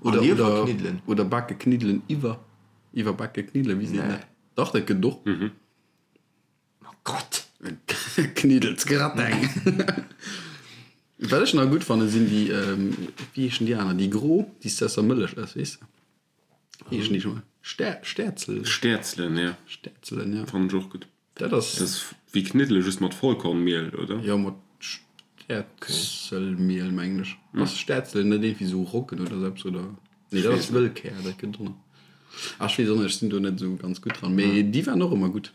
Oder, An oder, Iwwerkniddelen. oder bake Kniddelen iwwer, iwwerbake Kniddelen, wéi seet een dat? Dach, dat gëtt et och. Oh Gott! Kniddelsgrateng! Wat ech nach gutt fannen, sinn déi, wéi heeschen déi aner, déi gro, déi s de aus der Mëllech ëss, weess de? Wéi heeschen déi scho mol? Stäer, Stäerzelen? Stäerzelen, ja. Stäerzelen, ja. Fannen ech och gutt. Dat ass. Dat ass wéi Kniddele just mat Vollkornmiel, oder? Jo, mat Stäerzelmiel, mengen ech. Ass Stäerzelen net iergendwéi sou Roggen oder sou eppes, oder? Nee, dat ass Wëllkär, dat gëtt och nach. Ah, ech weess och net, ech sinn do net esou ganz gutt dran, mee déi waren och ëmmer gutt.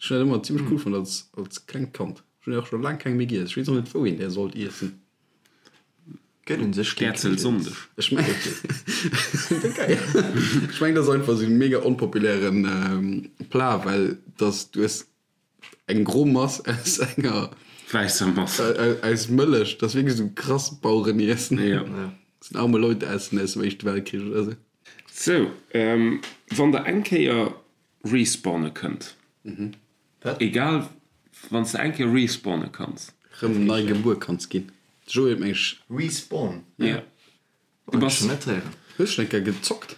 Ech hunn dat ëmmer zimmlech cool fonnt als, als klengt Kand. Ech hunn och scho laang keng méi giess. Ech weess och net, wou een där sollt iessen. Gëtt un sech kee Stäerzelsonndeg. Ech mengen, ech mengen, dat ass einfach esou e mega onpopulären Plat, well dass du hues eng gro Mass aus enger Wäisser Mass. Aus Mëllech. Dat ass wierklech esou krass Bauereniessen. Jo. Dat sinn arme Leute essen aus dem Éischte Weltkrich oder esou. Sou, wann der eng Kéier respawne kënnt. Egal, wann s de eng Kéier respawne kanns. Rëm nei gebuer kanns ginn. De Joé huet meng ech. Respawn? Ja. Du bass. Net héieren. Hues schon eng Kéier gezockt?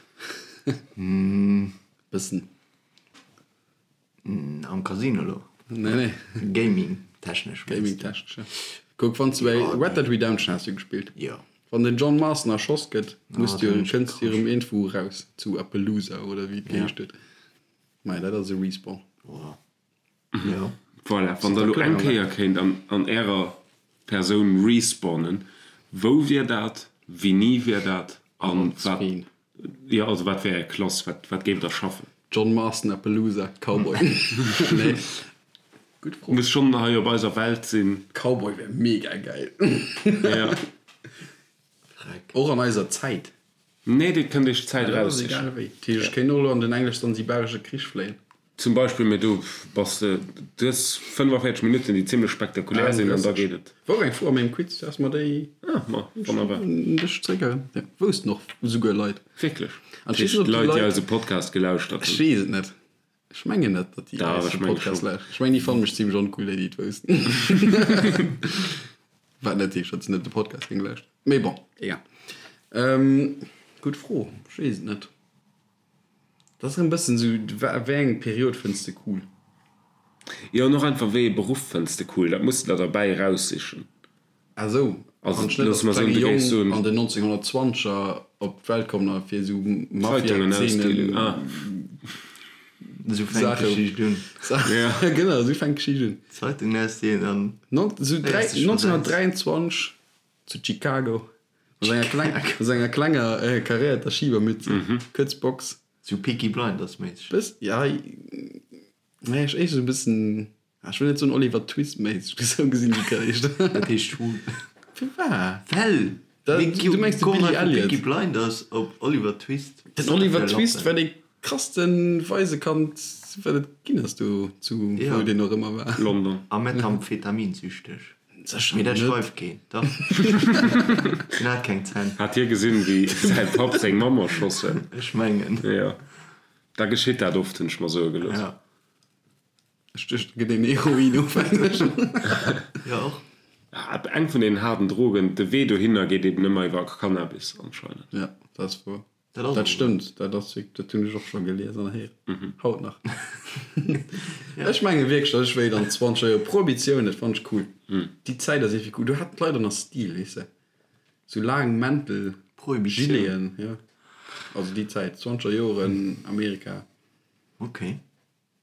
Bëssen. Am Casino lo? Nee, nee. Gaming technesch. Gaming technesch, ja. Kuck, wann s du bei Red Dead Redemption has du gespillt. Jo. Wann den John Marston erschoss gëtt, muss du, kënns du erëm iergendwou eraus, zu Appaloosa oder wéi et geheescht huet. Maja, dat ass e Respawn. Jo. Voilà, wann der elo eng Kéier kéint an ärer Persoun respawnen, wou wier dat, wéini wier dat an wat, jo, also wat wär är Klass, wat, wat géift der schaffen? John Marston, Appaloosa, Cowboy. Nee, gutt Fro. Muss schonn hei op eiser Welt sinn. Cowboy wär mega geil. Ja. Och an eiser Zäit. Nee, dir kënnt iech d'Zäit Ja, dat ass egal eraussichen. wéi. Dat heescht, ech kéint och elo an den englesch-sansibaresche Krich fléien. Zum Beispill, mee do bass de, du hues 45 Minutten, déi zimlech spektakulär sinn, an da geet et. Wor eng Fro a mengem Quiz, dass mer déi. Ah, ma wonnerbar. Un dech zréckerënnert. Jo, woussten och esouguer Leit. Wierklech? An ech weess net, ob déi Leit, déi eise Podcast gelauschtert hunn. Ech weess et net. Ech mengen net, datt déi eise Podcast lauschteren. Ech mengen, déi fanne mech zimlech oncool, déi, déi et woussten. Wat net heescht, datt se net de Podcast géinge lauschteren. Mee bon, egal. Gutt Fro, ech weess et net. Dat ass erëm bëssen esou, wéi eng Period fënns de cool? Jo, an och einfach, wéi ee Beruff fënns de cool? Dat muss de der derbäi eraussichen. Ah esou, Also, wann ech net loosse als mer soen, klenge du géifs Jong soen. an den 1920er op d'Welt kommen a fir esou Zeitungen ausdeelen, Mafia-Zeenen ah. Esou fänkt Saache, d'Geschicht un. Saache, genau, esou fänkt d'Geschicht un. Zeitungen ausdeelen an Non, esou dräi, féiers dech versetzt. 1923 zu Chicago. Mat enger kleng, mat enger klenger karéierter Schibermütze, kuerz Box. Sou Peaky Blinders méisseg. Bëss, ja, nee, ech éischter sou e bëssen, ah, ech wëll net soen Oliver Twist méisseg, mee sou gesinn déi éischter. Dat heescht hu. Firwat? Well! Da, du mengs de Billy Elliot. Peaky Blinders op Oliver Twist. Den Oliver Twist war dee krasste Waisekand, wat et ginn ass do zu, wou deen och ëmmer war. London. A methamphetaminzüchteg. Sécher Mee dat net. schreift keen, dach. Hien hat keng Zänn. Hat hie gesinn, wéi säi Papp seng Mamm erschoss huet? Ech mengen. Jo, da geschitt dat oft, hunn ech mer soe gelooss. Ja. Ech duecht, et gëtt een Heroinofhängeg. Jo, och. Eng vun deenen haarden Drogen, de Wee dohinner geet eben ëmmer iwwer Cannabis anscheinend. Ja, dat ass wouer. Dat ass Dat stëmmt, dat ass wierk, dat hunn ech och scho gelies an héieren. Haut nach. Ech menge wierklech, datt ech wéilt an zwanzeger Joer, Prohibitioun, dat fannt ech cool. Déi Zäit ass iergendwéi cool. Do haten d'Leit och nach Stil, weess de. Sou laang Mäntel, Prohibitioun. Gileten, jo. Also déi Zäit, zwanzeger Joren, Amerika. Okay.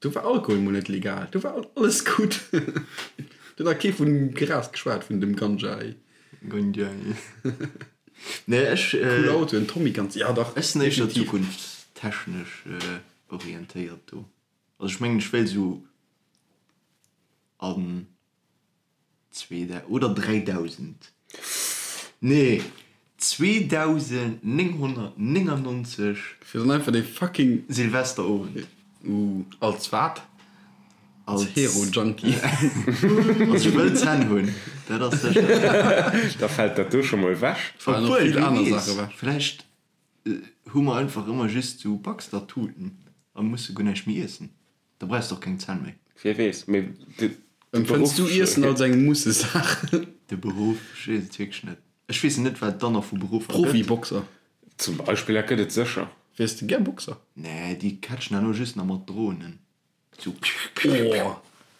Do war Alkohol mol net legal, do war alles gutt. Do huet nach kee vun Gras geschwat, vun dem Ganja. Ganja. Nee, ech. Cool Autoen, Tommy Guns, ja dach. Ech sinn éischter definitiv. zukunftstechnesch orientéiert do. Also ech mengen, ech wéilt esou an Oder 3000. Nee, 2999. Fir dann einfach dee fucking. Silvesterowend. Uh, als wat? Als Hero-Junkie. Also ech wëll Zänn hunn, dat ass sécher. Da fält dat do scho mol ewech. Falen och Obwuel, vill wie aner weess, Saache ewech. vläicht hu mer einfach ëmmer just sou Baxter-Tuten a musse guer näischt méi iessen. Da brauchs de och keng Zänn méi. Wie weess, mee de Empfënns Beruff. du Iessen als eng Mussesaach? De Beruff, ech weess et wierklech net. Ech weess net, wat et dann nach vu Beruffer gëtt. Profiboxer. Zum Beispill, dat gëtt et sécher. Wiers de gär Boxer? Nee, déi catchen herno just nach mat Dronen. Sou piu, piu, piu. Oh,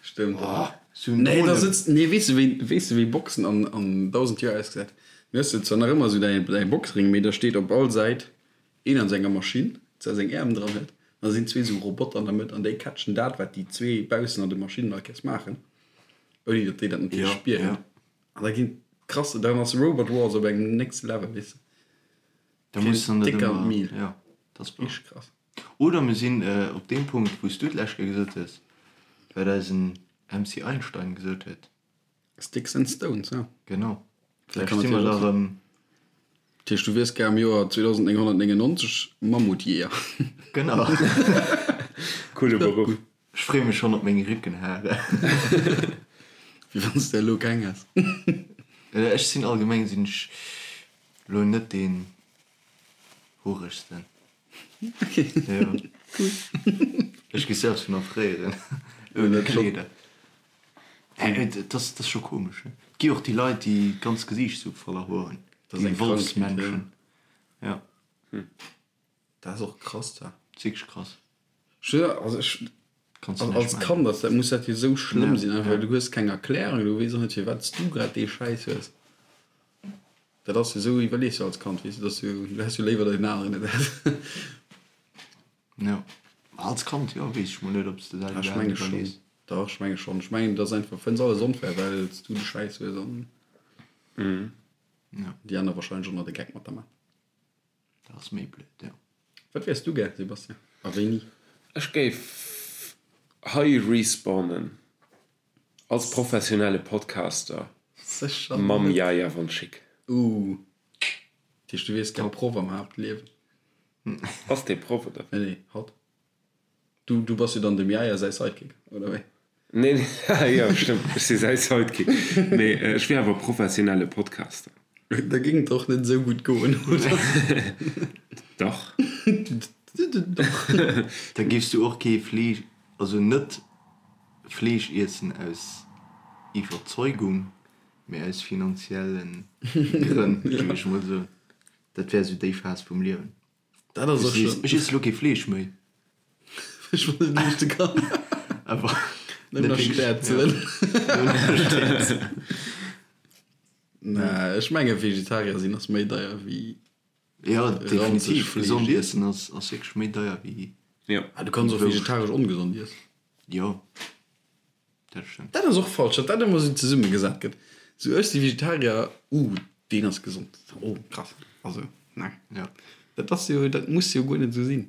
stëmmt. Oh, sou en Nee, da Dronen. sëtzt, nee, weess de wéi, weess de wéi Boxen an, an 1000 Joer ausgesäit? Du hues zwar nach ëmmer sou däi, däi Boxring, mee da steet op all Säit Een an senger Maschinn, zwar seng Äerm dran huet, an da sinn zwee sou Roboter an der Mëtt an déi catchen dat, wat déi zwee baussen an de Maschinnen all Kéiers maachen, ouni datt déi dat natierlech spieren. An da ginn krass, dann ass Robot Wars op engem next Level, weess de. Da muss dann dat Dick an ëmmer, d'Mil. jo, dat ass wahr. Richteg krass. Oder mir sinn op deem Punkt, wou s du d'lescht Kéier gesot hues, wat eisen MC Einstein gesot huet. Sticks and Stones, ja. Genau. Dat Vläicht kann si mer natierlech da och sinn. erëm. Dat heescht, du wiers gär am Joer 2999 Mammutjeeër. Genau. Coole Beruff. Ech freeë mech schonn op meng Réckenhare. Wéi wann s de elo keng häss. Ech sinn allgemeng sinn ech elo net deen horegsten. Okay. Jo. Ech gi selbst vun erfréieren ouni Kleeder. Et ass scho komesch, ne? Et gi och déi Leit, déi d'ganz Gesiicht sou voller Hoer hunn. Dat ass Déi eng Krankheet, Wolfsmenschen. Ja. Dat ass och krass, dat. Dat ass wierklech krass. Ech, also ech, Kanns du als näischt als maachen. Kand ass dat, muss dat jo sou schlëmm Ja, sinn, einfach ja. well du hues keng Erklärung, du weess och net firwat s du grad dee Schäiss hues. Dat ass jo sou, iwwerlees jo als Kand, weess du, dass du, du häss jo léiwer, datt een aneren et hätt. Jo. Als Kand, jo, weess ech mol net, ob s de dat Ech iwwerhaapt menge schonn. iwwerlees. Dach, ech menge schonn. Ech mengen, et ass einfach, fënns alles onfair, well s du de Schäiss hues an Ja. déi aner wahrscheinlech och nach de Geck mat der man. Dat ass méi blöd, jo. Wat wiers du gär, Sebastian? A wéini? Ech géif hei respawnen als professionelle Podcaster Sécher mam net. Yaya von Schick. Ooh. Dat heescht, du wiers gär Proff am Haaptliewen? Ass dee Proff, oder? Nee, nee, hatt. Du, du bass jo dann dem Yaya säi Sidekick, oder wéi? Nee, nee, jo, stëmmt, ech si säi Sidekick. Mee ech wier awer professionelle Podcaster. Da géing et och net esou gutt goen, oder? Dach. Dach. Da géifs du och kee Fleesch, also net Fleesch iessen aus Iwwerzeugung, mee aus finanzielle Grënn, géing ech mol soen. Dat wär esou déi Phas vum Liewen. Dat ass och schon. Ech iesse lo kee Fleesch méi. Ech mer net leeschte kann. Awer Nëmmen nach Stäerzelen. Nee, ech menge Vegetarier sinn ass méi deier wéi. Jo, definitiv. Gesond iessen ass wierklech méi deier wéi. Jo. Ah, du kanns och vegetaresch ongesond iessen. Jo. Dat stëmmt. Dat ass och falsch, datt dat ëmmer esou zesummegesat gëtt. Sou, ech si Vegetarier, uh, deen ass gesond, oh krass. Also, nee. Ja. Dat ass jo, dat muss jo guer net esou sinn.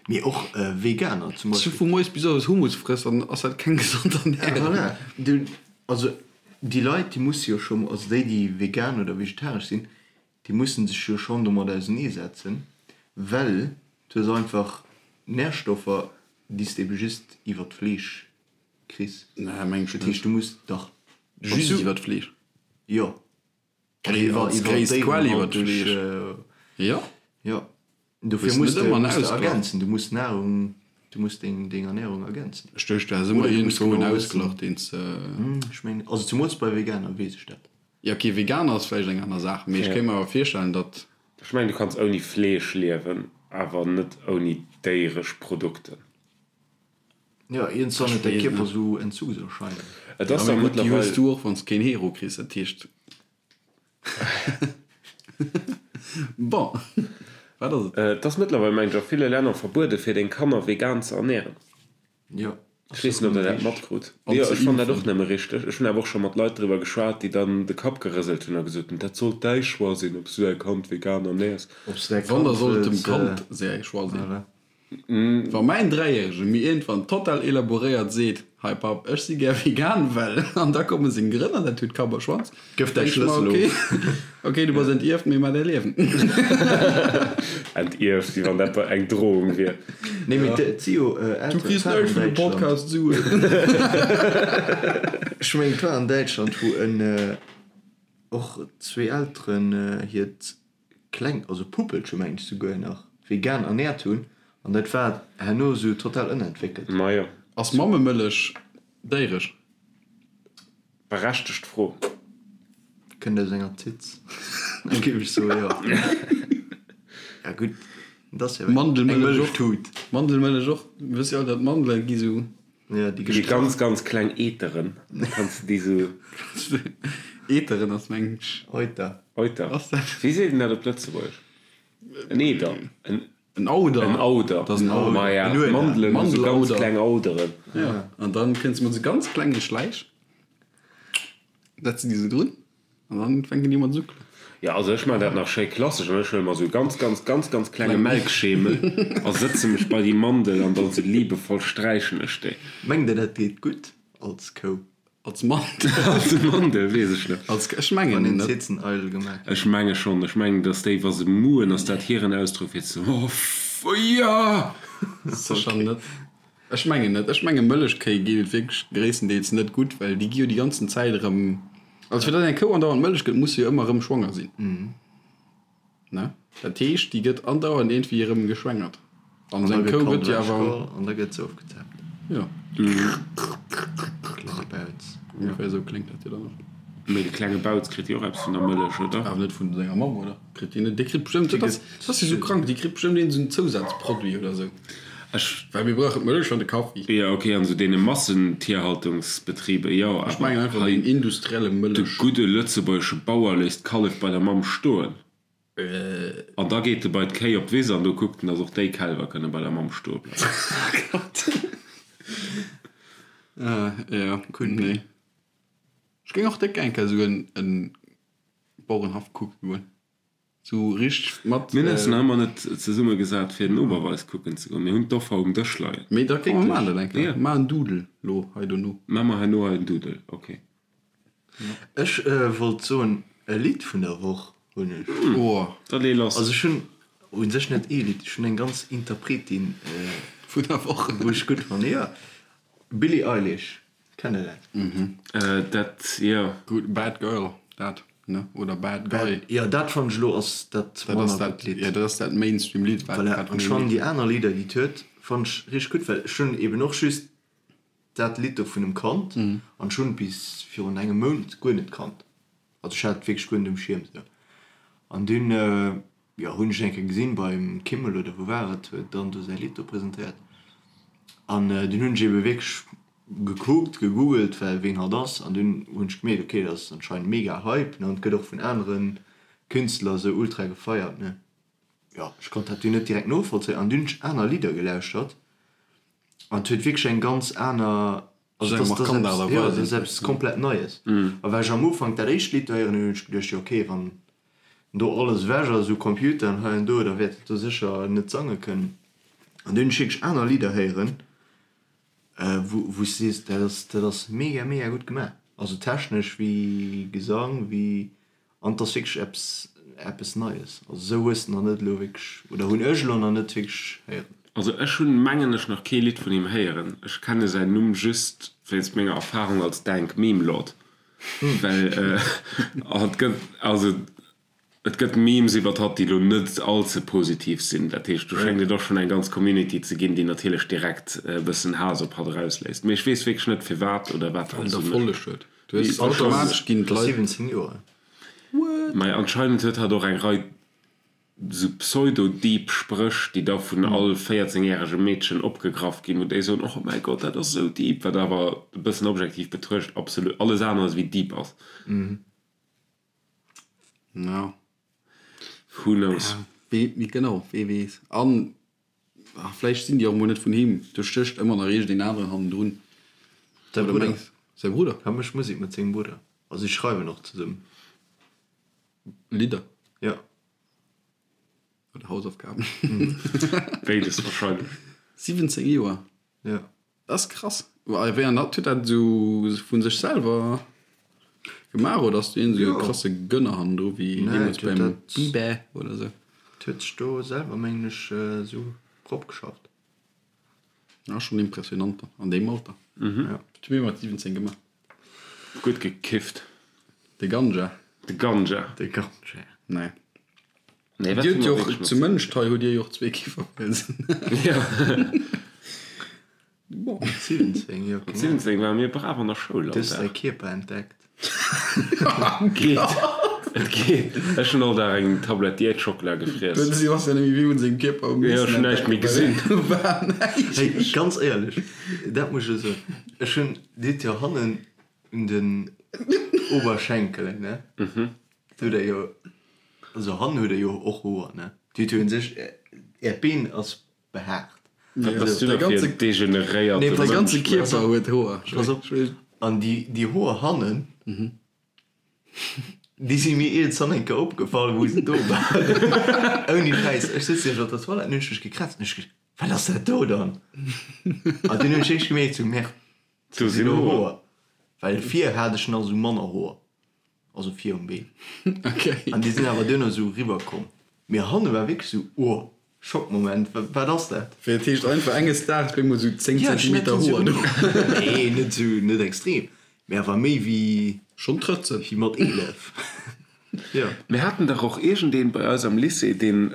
Mee och Veganer zum Beispill. Wann du vu moies bis owes Hummus frëss, dann ass dat keng gesond Ernärung. Voilà. Du, also déi Leit, déi musse jo scho, also déi, déi vegan oder vegetaresch sinn, déi musse sech jo schonn domat auseneesetzen, well du hues einfach Närstoffer, déi s de ebe just iwwer d'Fleesch kriss. Nee, meng ech Dat net. heescht, du muss dach. Just iwwer d'Fleesch? Jo. Iwwer als gréisst Quell iwwer d'Fleesch. Jo. Jo. Dofir Hues muss net de ëmmer en muss de Ausglach. ergänzen. Du muss Nahrung, du muss deng deng Ernährung ergänzen. Ech duecht, du häss ëmmer Oder du muss iergendwou en genau wëssen. Ausglach, deen s de. Ech mengen, also zemools bei Veganer weess ech dat. Jo, okay, Veganer ass vläicht eng aner Saach, mee ech kéint mer awer virstellen, datt. Ech mengen, du kanns ouni Fleesch liewen, awer net ouni déieresch Produkten. Jo, iergendwann huet däi Kierper sou Entzugserscheinungen. Et ass Ja, dach mee gutt, déi hues mëttlerweil. du och, wann s de keen Hero kriss, dat heescht. Bon, wat ass et? Et ass mëttlerweil, mengen ech, a ville Länner verbuede fir deng Kanner vegan ze ernären. Jo. Ech weess net, ob der dat matkrut. An Jo, ze ech fannen dat och impfen. nëmme richteg. Ech hunn awer och scho mat Leit driwwer geschwat, déi dann de Kapp gerëselt hunn a gesot hunn, dat sollt däi Choix sinn, ob s du däi Kand vegan ernäers. Ob s de däi Wann, da Kand soll et dem wëlls. Kand säi Choix sinn. Voilà. Wa mäin Dräijärege mir iergendwann total elaboréiert seet, Hei Papp, ech si gär vegan, well, an da komme seng Grënn an dat huet Kapp a Schwanz, Gëff däi denk ech mer, Schlëssel okay, of. okay, du bass entierft, mee mar däi Liewen. Entierft, wéi wann dat eng Drohung wier. Nee, mee et si jo Du Elteren, kriss et war an näischt vun dem Däitschland. Podcast Suen. Ech mengen, et war an Däitschland, wou en och zwee Elteren hiert kleng, also Puppelche mengen ech souguer nach, vegan ernährt hunn an dat war herno sou total ënnerentwéckelt. Majo. Ass Mammemëllech déiresch? Berechtegt Fro. Kënnt aus enger Titz, da géif ech soe jo. Ja gutt, dat ass jo eng Mandelmëllech och. Mëllechtut. Mandelmëllech och. Mir wësse jo all, datt Mandele gi sou. Ja, déi Déi gestrach. ganz ganz kleng Eteren, kanns de déi sou. Eteren ass mengen ech. Euter. Euter. Ass dat? Wéi seet een dat op Lëtzebuergesch? En Eder. En. En Auder. En Auder. Dat ass en Auder. Ma ja, En Ueder. Mandelen hu sou ganz Mandelauder. kleng Auderen. Ja. An dann kënns de mat sou ganz klenge Schläich, setz de déi sou drun an dann fänken déi u mat suckelen. Ja, also ech man dat nach schéi klassesch an ech huele mer sou ganz, ganz, ganz, ganz klenge Melkschemel a sëtze mech bei déi Mandel an dann sou liebevoll sträichen ech déi. Mengt der dat geet gutt als Kou? Als Mandel? Als Mandel, weess ech net. Als, ech mengen Wann een net. Zitzen eidel gemaach Ech menge schonn. Ech mengen, dass déi, wa se muhen, ass dat hiren Ausdrock fir ze oh, ja! Sécher net. Ech mengen net. Ech menge Mëllechkéi geet et wierklech gréisstendeels net gutt, well déi gi jo déi ganzen Zäit erëm, also fir datt eng Kou andauernd Mëllech gëtt, muss se jo ëmmer erëm schwanger sinn. Ne? Dat heescht, déi gëtt andauernd iergendwéi erëm geschwängert. An An da seng gëtt Kou d'Kand gëtt jo awer. ewechgeholl an da gëtt se ofgezaapt. Jo. Klenge Bauz. Ongeféier esou kléngt dat jo dann och. Mee de klenge Bauz kritt jo och eppes vun der Mëllech, oder? Awer net vun senger Mamm, oder? Kritt deen net? Dee kritt bestëmmt, dat ass, dat ass jo sou krank, déi kritt bestëmmt iergend esou en Zousazproduit oder esou. Ech. Well mir brauchen d'Mëllech an de Kaffi. Jo, ok, an esou deene Massentierhaltungsbetriben, jo, Ech mengen awer einfach hei, den industrielle de Mëllech. gudde lëtzebuergesche Bauer léisst d'Kallef bei der Mamm stoen. An da geet e bei d'Kéi op d'Wiss an do kuckt en, dass och déi Kälwer kënne bei der Mamm stoe bleiwen. Jo, nee. Ech géing och déck eng Kéier esou en Bauerenhaff kucke goen. Sou richteg mat. Mir hunn eis nach ëmmer net zesumme gesat fir den Oberweis kucken ze goen. Mir hunn d'Offer um Dësch leien. Mee da komm mer maachen dat eng Kéier. Maach en Doodle lo hei dono. Maache mer herno hei en Doodle, ok. Ech wollt soen, e Lidd vun der Woch hunn ech. Oh. Da lee lass. Also ech hunn u sech net ee Lidd, ech hunn eng ganz Interpretin. Vun der Woch. Wou ech gutt fannen, jo. Billie Eilish, kennt der dat? Dat, jo. Gutt, Bad Girl, dat, ne? Oder Bad Guy. Jo, dat fannen ech elo ass dat Dat ass manner dat, gutt Lidd. jo, dat ass dat Mainstream-Lidd, wat Voilà, wat an ech fannen déi aner Lidder, déi et huet, fannen ech richteg gutt, well ech hunn eben och just dat Lidd do vun em kannt an ech hunn et bis virun engem Mount guer net kannt. Also ech hat et wierklech guer net um Schierm esou. An dunn, jo, hunn ech eng Kéier gesinn beim Kimmel oder wou war et, huet dann do säi Lidd do presentéiert. An dunn hunn ech ebe wierklech gekuckt, gegoogelt, well ween hatt ass. An dunn hunn ech gemierkt, okay, dat ass anscheinend mega Hype, ne, an et gëtt och vun anere Künstler esou ultra gefeiert, ne. Jo, ech konnt dat dunn net direkt novollzéien. An dunn hunn ech aner Lidder gelauschtert an et huet wierklech eng ganz aner Also dat ass, dat ass, jo, dat ass eppes komplett Neies. A well ech am Ufank dat éischt Lidd do héieren hunn, hunn ech geduecht, jo okay, wann do alles ewech ass u Computeren hei an do, da wäert et do sécher net sange kënnen. An dunn hunn ech wierklech aner Lidder héieren, wou, wou s de sees, dat ass, dat ass mega, mega gutt gemaach. Also technesch wéi Gesang, wéi An et ass wierklech eppes, eppes Neies. Also esou hues de nach net elo wierklech, oder hunn ech elo nach net wierklech héieren. Also ech hunn, mengen ech, nach kee Lidd vun him héieren. Ech kenne säin Numm just wéinst menger Erfahrung als Dank Meme Lord, well hatt gëtt, also et gëtt Memes iwwert hatt, déi elo net all ze positiv sinn. Dat heescht, do schéngt et och schonn eng ganz Community ze ginn, déi natierlech direkt e bëssen Haass op hatt erausléisst. Mee ech weess wierklech net firwat oder wat Well hatt en esou mécht. Erfolleg huet. Du hues automatesch ginn d'Leit. 17 Joer. What? Mei anscheinend huet hatt och eng Rei sou pseudo-deep Spréch, déi da vun all 14 järege Meedchen opgegraff ginn, wou déi soen, oh mäi Gott, dat ass esou deep, wat awer e bëssen objektiv betruecht absolut alles aneres wéi deep ass. Ja. Who knows? Wee, genau, wee weess. An Ah, vläicht sinn déi och emol net vun him. Do stécht ëmmer nach iergendeen aneren hannendrun. Säi Oder Brudder. mengs säi Brudder? Hie mécht Musek mat sengem Brudder. Also si schreiwen och zesummen. Lidder? Jo. Oder Hausaufgaben? Béides wahrscheinlech. 17 Joer? Jo. Dat ass krass. A wéi an dat huet dat esou vun sech selwer gemaach oder ass do iergend esou e krasse Gönner hannendru wéi deemools beim Bieber oder esou? Dat huet sech do selwer mengen ech esou ropgeschafft. Ja, schon impressionant dann an deem Alter. Wat hu mir mat 17 gemaach? Gutt gekifft. De Ganja. De Ganja. De Ganja. Nee. Nee, wat Dir hu hutt mer jo wierklech och mat zu Mënscht hei hutt Dir jo och zwee Kifferpilzen. Ja. Bon. 17, jo, Mat genau. 17 ware mir brav an der Schoul Du all hues däi Dag. Kierper entdeckt. Geet. Et geet. Ech hunn all Dag eng Tablett Diätschockela Den gefriess. Sebastian nämlech wéi un sengem Kierper um Jo, ech hunn näischt méi gesinn. War näischt. Hey, ganz éierlech, dat muss ech elo soen, ech hunn, Dir hutt jo hannen un den Oberschenkelen, ne? Do hutt Der jo, also hannen hutt Der jo och Hoer, ne? Dir hutt jo un sech, Äert Been ass behaart. Wat bass du Däi da fir ganze- en degeneréierte Nee, Däi Mënsch? ganze Kierper huet Hoer. Pass op, an déi, déi Hoer hannen, déi si mir iergendwann eng Kéier opgefall, wou se do waren. Ouni Schäiss, ech sëtz nämlech op der Toilette an hunn ech mech gekrätzt an ech geduecht, Wat ass dat do dann? An dunn hunn ech eréischt gemierkt, sou, Merde, Do do sinn sinn och Hoer. Hoer. Well vir hat ech nach sou manner Hoer, also vir um Been. Okay. An déi sinn awer duerno sou riwwer komm. Mee hanne war wierklech sou, oh, Schockmoment, wat ass dat? Wéi dat heescht einfach enges Daags op eemol sou 10 Ja, ech Zentimeter Hoer do. Nee, net sou, net extrem, mee awer méi wéi. Schonn Trëtzen. Wéi mat 11. Jo. Mir haten dach och iergendeen bei eis am Lycée, deen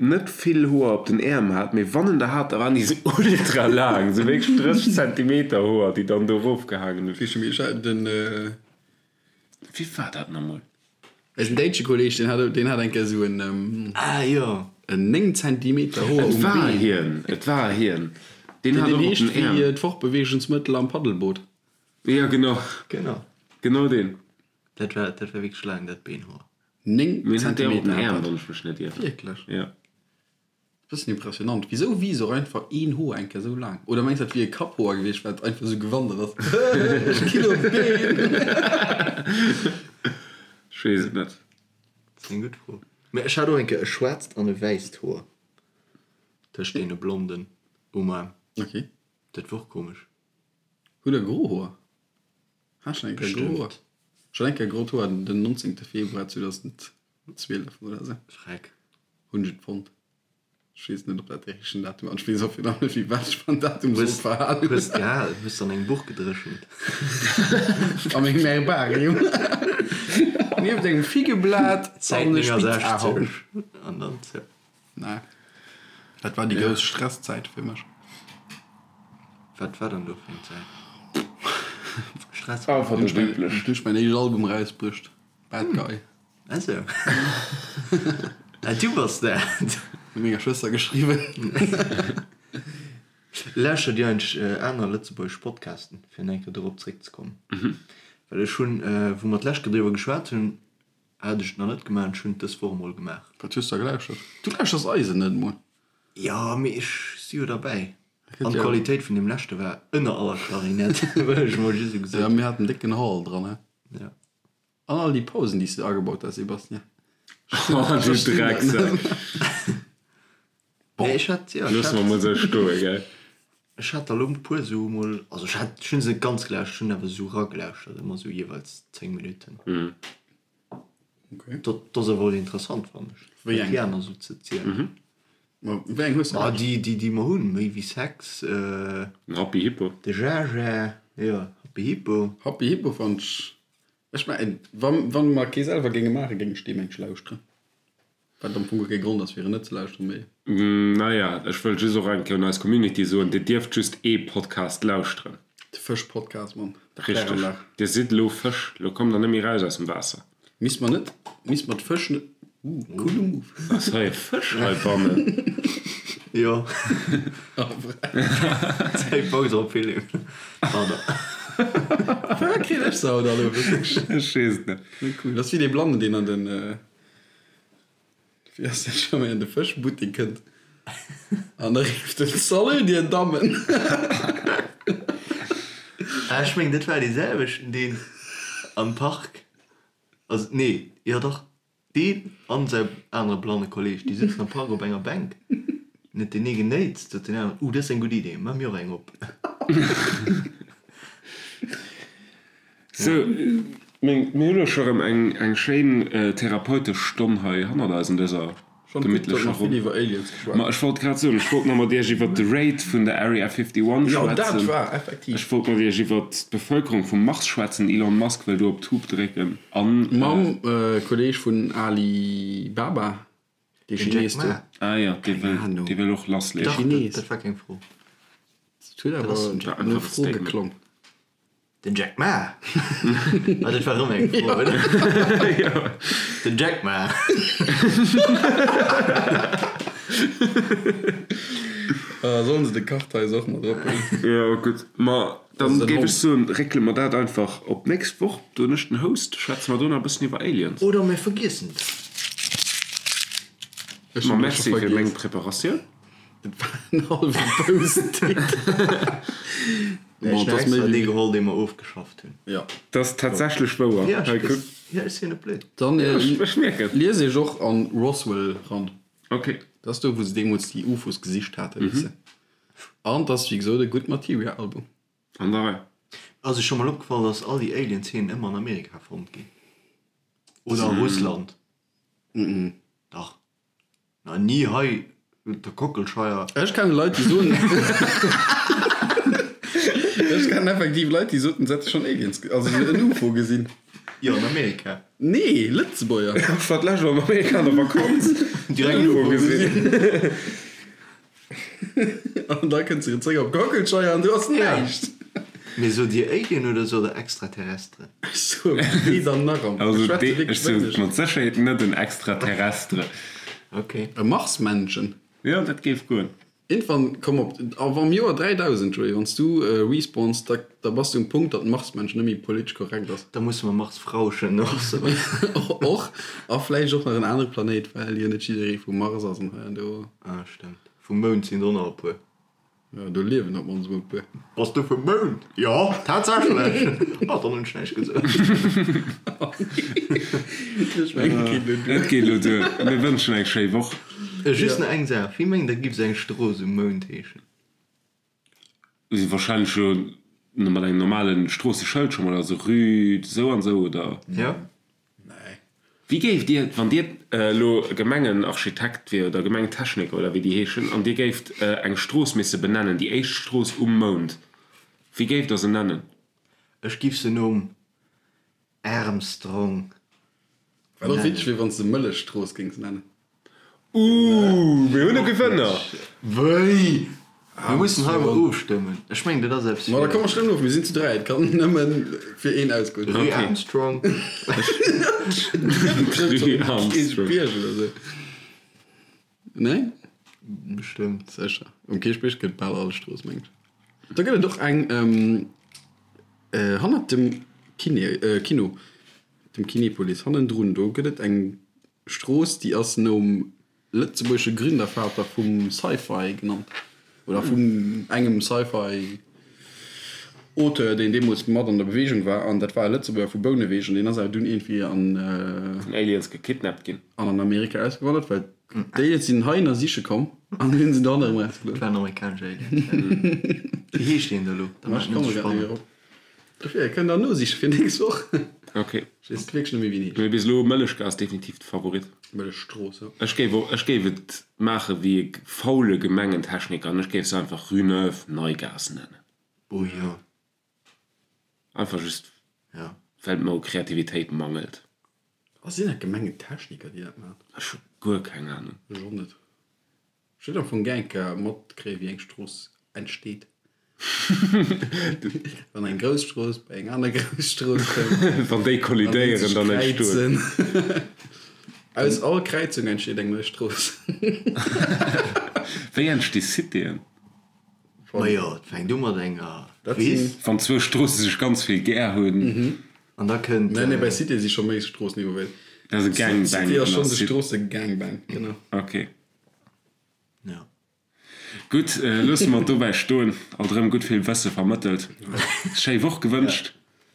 net vill Hoer op den Äerm hat, mee wann en der hat, da waren déi sou ultra laang, sou wierklech 30 Zentimeter Hoer, déi dann do erofgehaangen hunn. Wéi scho méi, den. Wie war dat namol? Eisen däitsche Kolleg, deen hat, deen hat eng Kéier esou en, Ah jo. en 9 Zentimeter Hoer Et um war Been. hien, et war hien. Deen Deen hat och op heescht den wéi Äerm. d'Fortbeweegungsmëttel am Paddelboot. Jo, genau. Genau. Genau deen. Dat war, dat war wierklech laang, dat Beenhoer. 9 Mee en hat déi och op den Zentimeter hat Äerm, dat. wann ech mech net ieren. Wierklech? Jo. Bëssen impressionant. Wisou wiisst och einfach een Hoer eng Kéier esou laang? Oder mengs dat wier e Kapphoer gewiescht, wat einfach esou gewandert ass? Ech ginn op d'Been! Ech weess et net. Dat ass eng gutt Fro. Mä ech hat och eng Kéier e schwaarzt an e wäisst Hoer tëscht deene blonden um Aarm. Ok. Dat war och komesch. Hutt der gro Hoer? Hat schon eng Kéier gro Hoer? Bestëmmt. Ech hat eng Kéier grot Hoer den 19. Februar 2012 oder esou. Schreck. Hunn ech et fonnt. Ech weess net, ob dat dee richtegen Datum ass. Ech weess och virun allem net, wéi wat ech beim Datum soll verhalen. Hues gehal, hues an engem Buch gedréchent. A mengem Herbarium. Nieft engem Figgeblat Säit an e Spitzahorn. 69 an dann zou. Nee. Dat war déi grouss Stresszäit fir mech. Wat war dann do fir eng Zäit? Stress? Einfach Hunn net üblech. ech mäin éischt Album erausbruecht, Bad Guy. Ah sou. Ah, du bass dat. Mat menger Schwëster geschriwwen. Lauschtert dir eigentlech aner lëtzebuergesch Podcasten, fir nach eng Kéier dorop zréckzekommen? Well ech hunn, wou mer d'lescht Kéier driwwer geschwat hunn, hat ech et nach net gemaach an ech hunn et dës Woch emol gemaach. Wat hues de da gelauschtert? Du lauschters eisen net emol. Jo, mee ech si jo derbäi. An d'Qualitéit vun deem leschte war ënner aller Klarinett, wëll ech emol just esou gesot. Jo, mir haten décken Hall dran, he? Ja. An all déi Pausen, déi s de agebaut has, Sebastien. Oh, du Drecksack. Bon. Nee, ech hat, jo, ech Loosse mer hat, mol sou stoe, gell? ech hat der elo e puer sou mol, also ech hat, ech hunn se net ganz gelauschtert, ech hunn awer sou eragelauschert, ëmmer sou jeeweils 10 Minutten. Okay. Dat, dat ass awer och interessant, fannen ech, Wéi wat eng? déi aner sou ze zielen. Ma wéi eng hues de Ma gelauschtert? déi, déi, déi mer hunn, Méi wéi Sex, Den Happy Hippo. de Jaja, jo, Happy Hippo. Happy Hippo fannt ech Ech mengen, wann mer kee selwer géinge maachen, géing ech deem eng lauschteren. Wat am Fong guer kee Grond ass, fir en net ze lauschteren, mee. Naja, ech wëll just och eng Kéier un eis Community soen, Dir dierft just ee Podcast lauschteren. De Fësch-Podcast, Mann, der Richteg. Kläranlag. Dir sidd elo Fësch, elo kommt der net méi raus aus dem Waasser. Misst mer net, misst mer d'Fësch net, uh, coole Move. Ass hei e Fësch heibannen? Jo. Zäit Paus op Philipp. Pardon. Firwat kritt ech se haut alle wierklech? Ech weess et net. Net cool. Dat ass wéi dee Blannen, deen an den, wéi ass dat scho méi, an de Fëschbuttek kënnt an da rifft en, Salut, dir Dammen! Ah, ech mengen, dat war dee selwechten, deen am Park, also nee, jo dach, Deen an säi anere blanne Kolleg, déi sëtzen am Park op enger Bänk. Net deen ee genéitst, sot deen aneren, Uh, dat ass eng gutt Idee, maache mir och eng op. Sou, mir hunn elo scho rëm eng schéin therapeutesch Stonn hei hannert eis an dëser Gemitlecher Ronn. Iwwer Aliens geschwat. Ma ech wollt grad soen, ech wollt nach mat iech iwwert de Raid vun der Area 51 Jo, dat schwätzen. war effektiv. Ech wollt mat iech iwwert d'Bevëlkerung vum Mars schwätzen. Elon Musk wëll do op d'Tube drécken an. Mam Kolleeg vun Ali Baba, dee Den Jack Chines do. Ma. Ah jo, dee Keng wëll, Ahnung. dee wëll och lassleeën. Dach, dat, Chines. dat war keng Fro. Dat huet Dat ass awer den Jack no Ma. Fro Statement. geklong. Den Jack Ma! Ah, dat war erëm eng Fro, oder? Den Jack Ma! Sollen se de Kartheis och mat erophuelen? Jo, gutt. Ma dann den géif Hond. ech soen, réckele mer dat einfach op d'nächst Woch. Do hunn ech den Host. Schwätze mer do nach e bëssen iwwer Aliens. Oder mir vergiessen et. Ech Ma hunn et merci scho fir meng vergiess. Preparatioun. Dat war en hallwe Post-it. Nee, Bon, ech et hunn ass méi extra dee wéi. geholl, dee mer ofgeschafft hunn. Ja. Dat ass tatsächlech wouer. Ja, Hei, ech, kuck. ja, ech sinn net blöd. Dann Ja, ech, ech mierken. lies iech och an Roswell ran. Ok. Dat ass do, wou se deemools déi UFOs gesicht haten, weess de. An et ass, wéi gesot, e gutt Materia-Album. An der Rei. Ass iech scho mol opgefall, dass all déi Alien-Zeenen ëmmer an Amerika fonnt ginn? Oder a Russland? Dach. Na ni hei der Kockelscheier. Ech kennen Leit déi soen Ech kennen effektiv Leit déi soten se hätte schonn Aliens also en Ufo gesinn. Jo an Amerika. Nee, Lëtzebuerger. Ech war d'lescht an Amerika an der Vakanz. Direkt en Ufo gesinn. An da kënns de zréck op d'Kockelscheier an du ass näischt. Mee sot dir Alien oder sot der Extraterrestre? Ech soe weder nach am. Also Ech schwätze dee, wierklech ech sot wéineg. mat Sécherheet net en Extraterrestre. Ok. E Marsmännchen. Jo, dat géif goen. Irgendwann komm op, awer am Joer 3000, Joé, wann s du respawns, da da bass du um Punkt, datt Marsmännchen net méi politesch korrekt ass. Da musse mer Marsfrauchen och soen. Och, a vläicht och nach en anere Planéit, well jo net jidderee vum Mars ass an hei an do. Ah, stemmt. Vum Mound sinn der och nach e puer. Jo, do liewen op mannst emol e puer. Bass du vum Mound? Jo, tatsächlech! Ah, dann hunn ech näischt gesot. Ech mengen, et geet elo duer. Et geet elo duer. Mir wënschen eng schéi Woch. Just nach eng Saach, Wéi mengt der giff sou eng Strooss um Mound heeschen? Wahrscheinlech jo mat engem normalen Stroosseschëld scho mol, also Rue sou an sou, oder? Jo. Nee. Wéi géift Dir, wann Dir elo Gemengenarchitekt wier oder Gemengentechniker oder wéi déi heeschen, an Dir géift eng Strooss misse benennen, déi éischt Strooss um Mound, wéi géift Der se nennen? Ech giff se nom Armstrong Wat och witzeg wier, wann s de Mëllechstrooss géings nennen. Ooh, mir hunn e Gewënner! Wéi? Mir mussen hei mol ofstëmmen. Ech mengen, dat ass eppes Ma da fir. komm mer stëmmen of, mir sinn zu 3, et kann nëmmen fir een ausgoen. Rue Armstrong. Rue Armstrong. Kierchbierg oder sou. Nee? Bestëmmt. Sécher. Um Kierchbierg gëtt bal all Strooss, mengen ech. Da gëtt et och eng hannert dem Kiné, Kino, dem Kinepolis hannendrun, do gëtt et eng Strooss, déi ass nom lëtzebuergesche Gründervater vum Sci-Fi genannt, oder vun engem Sci-Fi Auteur, deen deemools mat an der Beweegung war, an dat war e Lëtzebuerger vu Bouneweg, an deen ass awer dunn iergendwéi an. Vun Aliens gekidnappt ginn. An an Amerika ausgewandert, well d'Aliens sinn heihinner siche komm an hunn se dann erëm erausgelooss. Dat waren amerikanesch Aliens, ja. Wéi heescht deen da elo? Da maachen ech et spannend. Dofir, kënnt der nosiche fir nächst Woch. Ok. Ech weess wierklech net méi wéi en heescht. Mee bis elo, Mëllechgaass ass definitiv de Favorit. Mëllechstrooss, jo. Ech géif och, ech géif et maache wéi e faule Gemengentechniker an ech géif se einfach Rue Neuve, Neigaass nennen. Oh jo. Einfach just, Ja. well et mer u Kreativitéit mangelt. A sinn dat Gemengentechniker, déi dat maachen? Ech hu guer keng Anung. Ech och net. Ech huet am Fong gär eng Kéier matkréien, wéi eng Strooss entsteet. Wann eng grouss Strooss bei eng aner grouss Strooss kënnt. Wann déi kollidéieren, dann entstoen. Aus all Kräizung entsteet eng nei Strooss. Wéi entsti Citéen? Majo, et fänkt u mat enger Wiss. Wann zwou Stroosse sech ganz vill gär hunn. An da kënnt. Nee, nee, bei Cité si scho méi Stroossen involvéiert. Dat ass e Gangbang. Cité ass schonns e Stroosse-Gangbang, genau. Ok. Ja. Gutt, loosse mer et dobäi stoen. Alt erëm gutt vill Wësse vermëttelt. Schéi Woch gewënscht.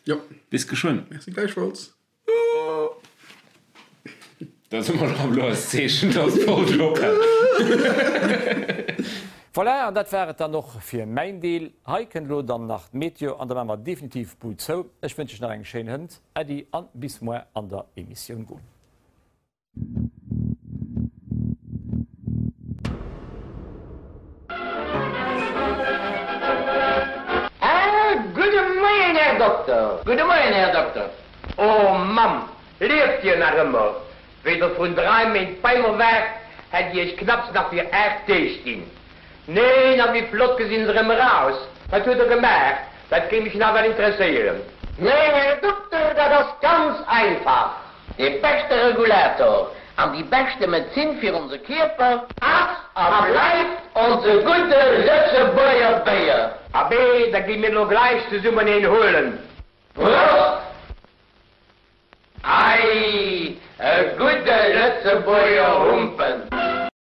Jo. Bis geschwënn. Merci gläichfalls. Dat ass ëmmer nach elo eist Zeechen, dass d'Folg ophält. Voilà, an dat war et dann och fir mäin Deel. Hei kënnt elo dann nach d'Meteo an da maache mer definitiv d'Bud zou. Ech wënsch iech nach eng schéin Hënt. Äddi an bis moar an der Emissioun Goal. Ah, gudde Moien, Här Dokter! Gudde Moien, Här Dokter! Oh, Mamm, lieft Dir nach ëmmer? Wéi Der vrun drai Méint bei mer waart, hätt Dir Iech knapps nach fir 8 Deeg ginn. Neen, a wéi flott gesinn se erëm eraus! Wat huet Der gemaach? Dat géing mech nawell interesséieren. Nee, Här Dokter, dat ass ganz einfach. Dee beschte Regulator an déi beschte Medezin fir onse Kierper ass a bleift onse gudde Lëtzebuerger Béier. Abee, da gi mir elo gläich zesummen een huelen. Prost! Ei, e gudde Lëtzebuerger Humpen!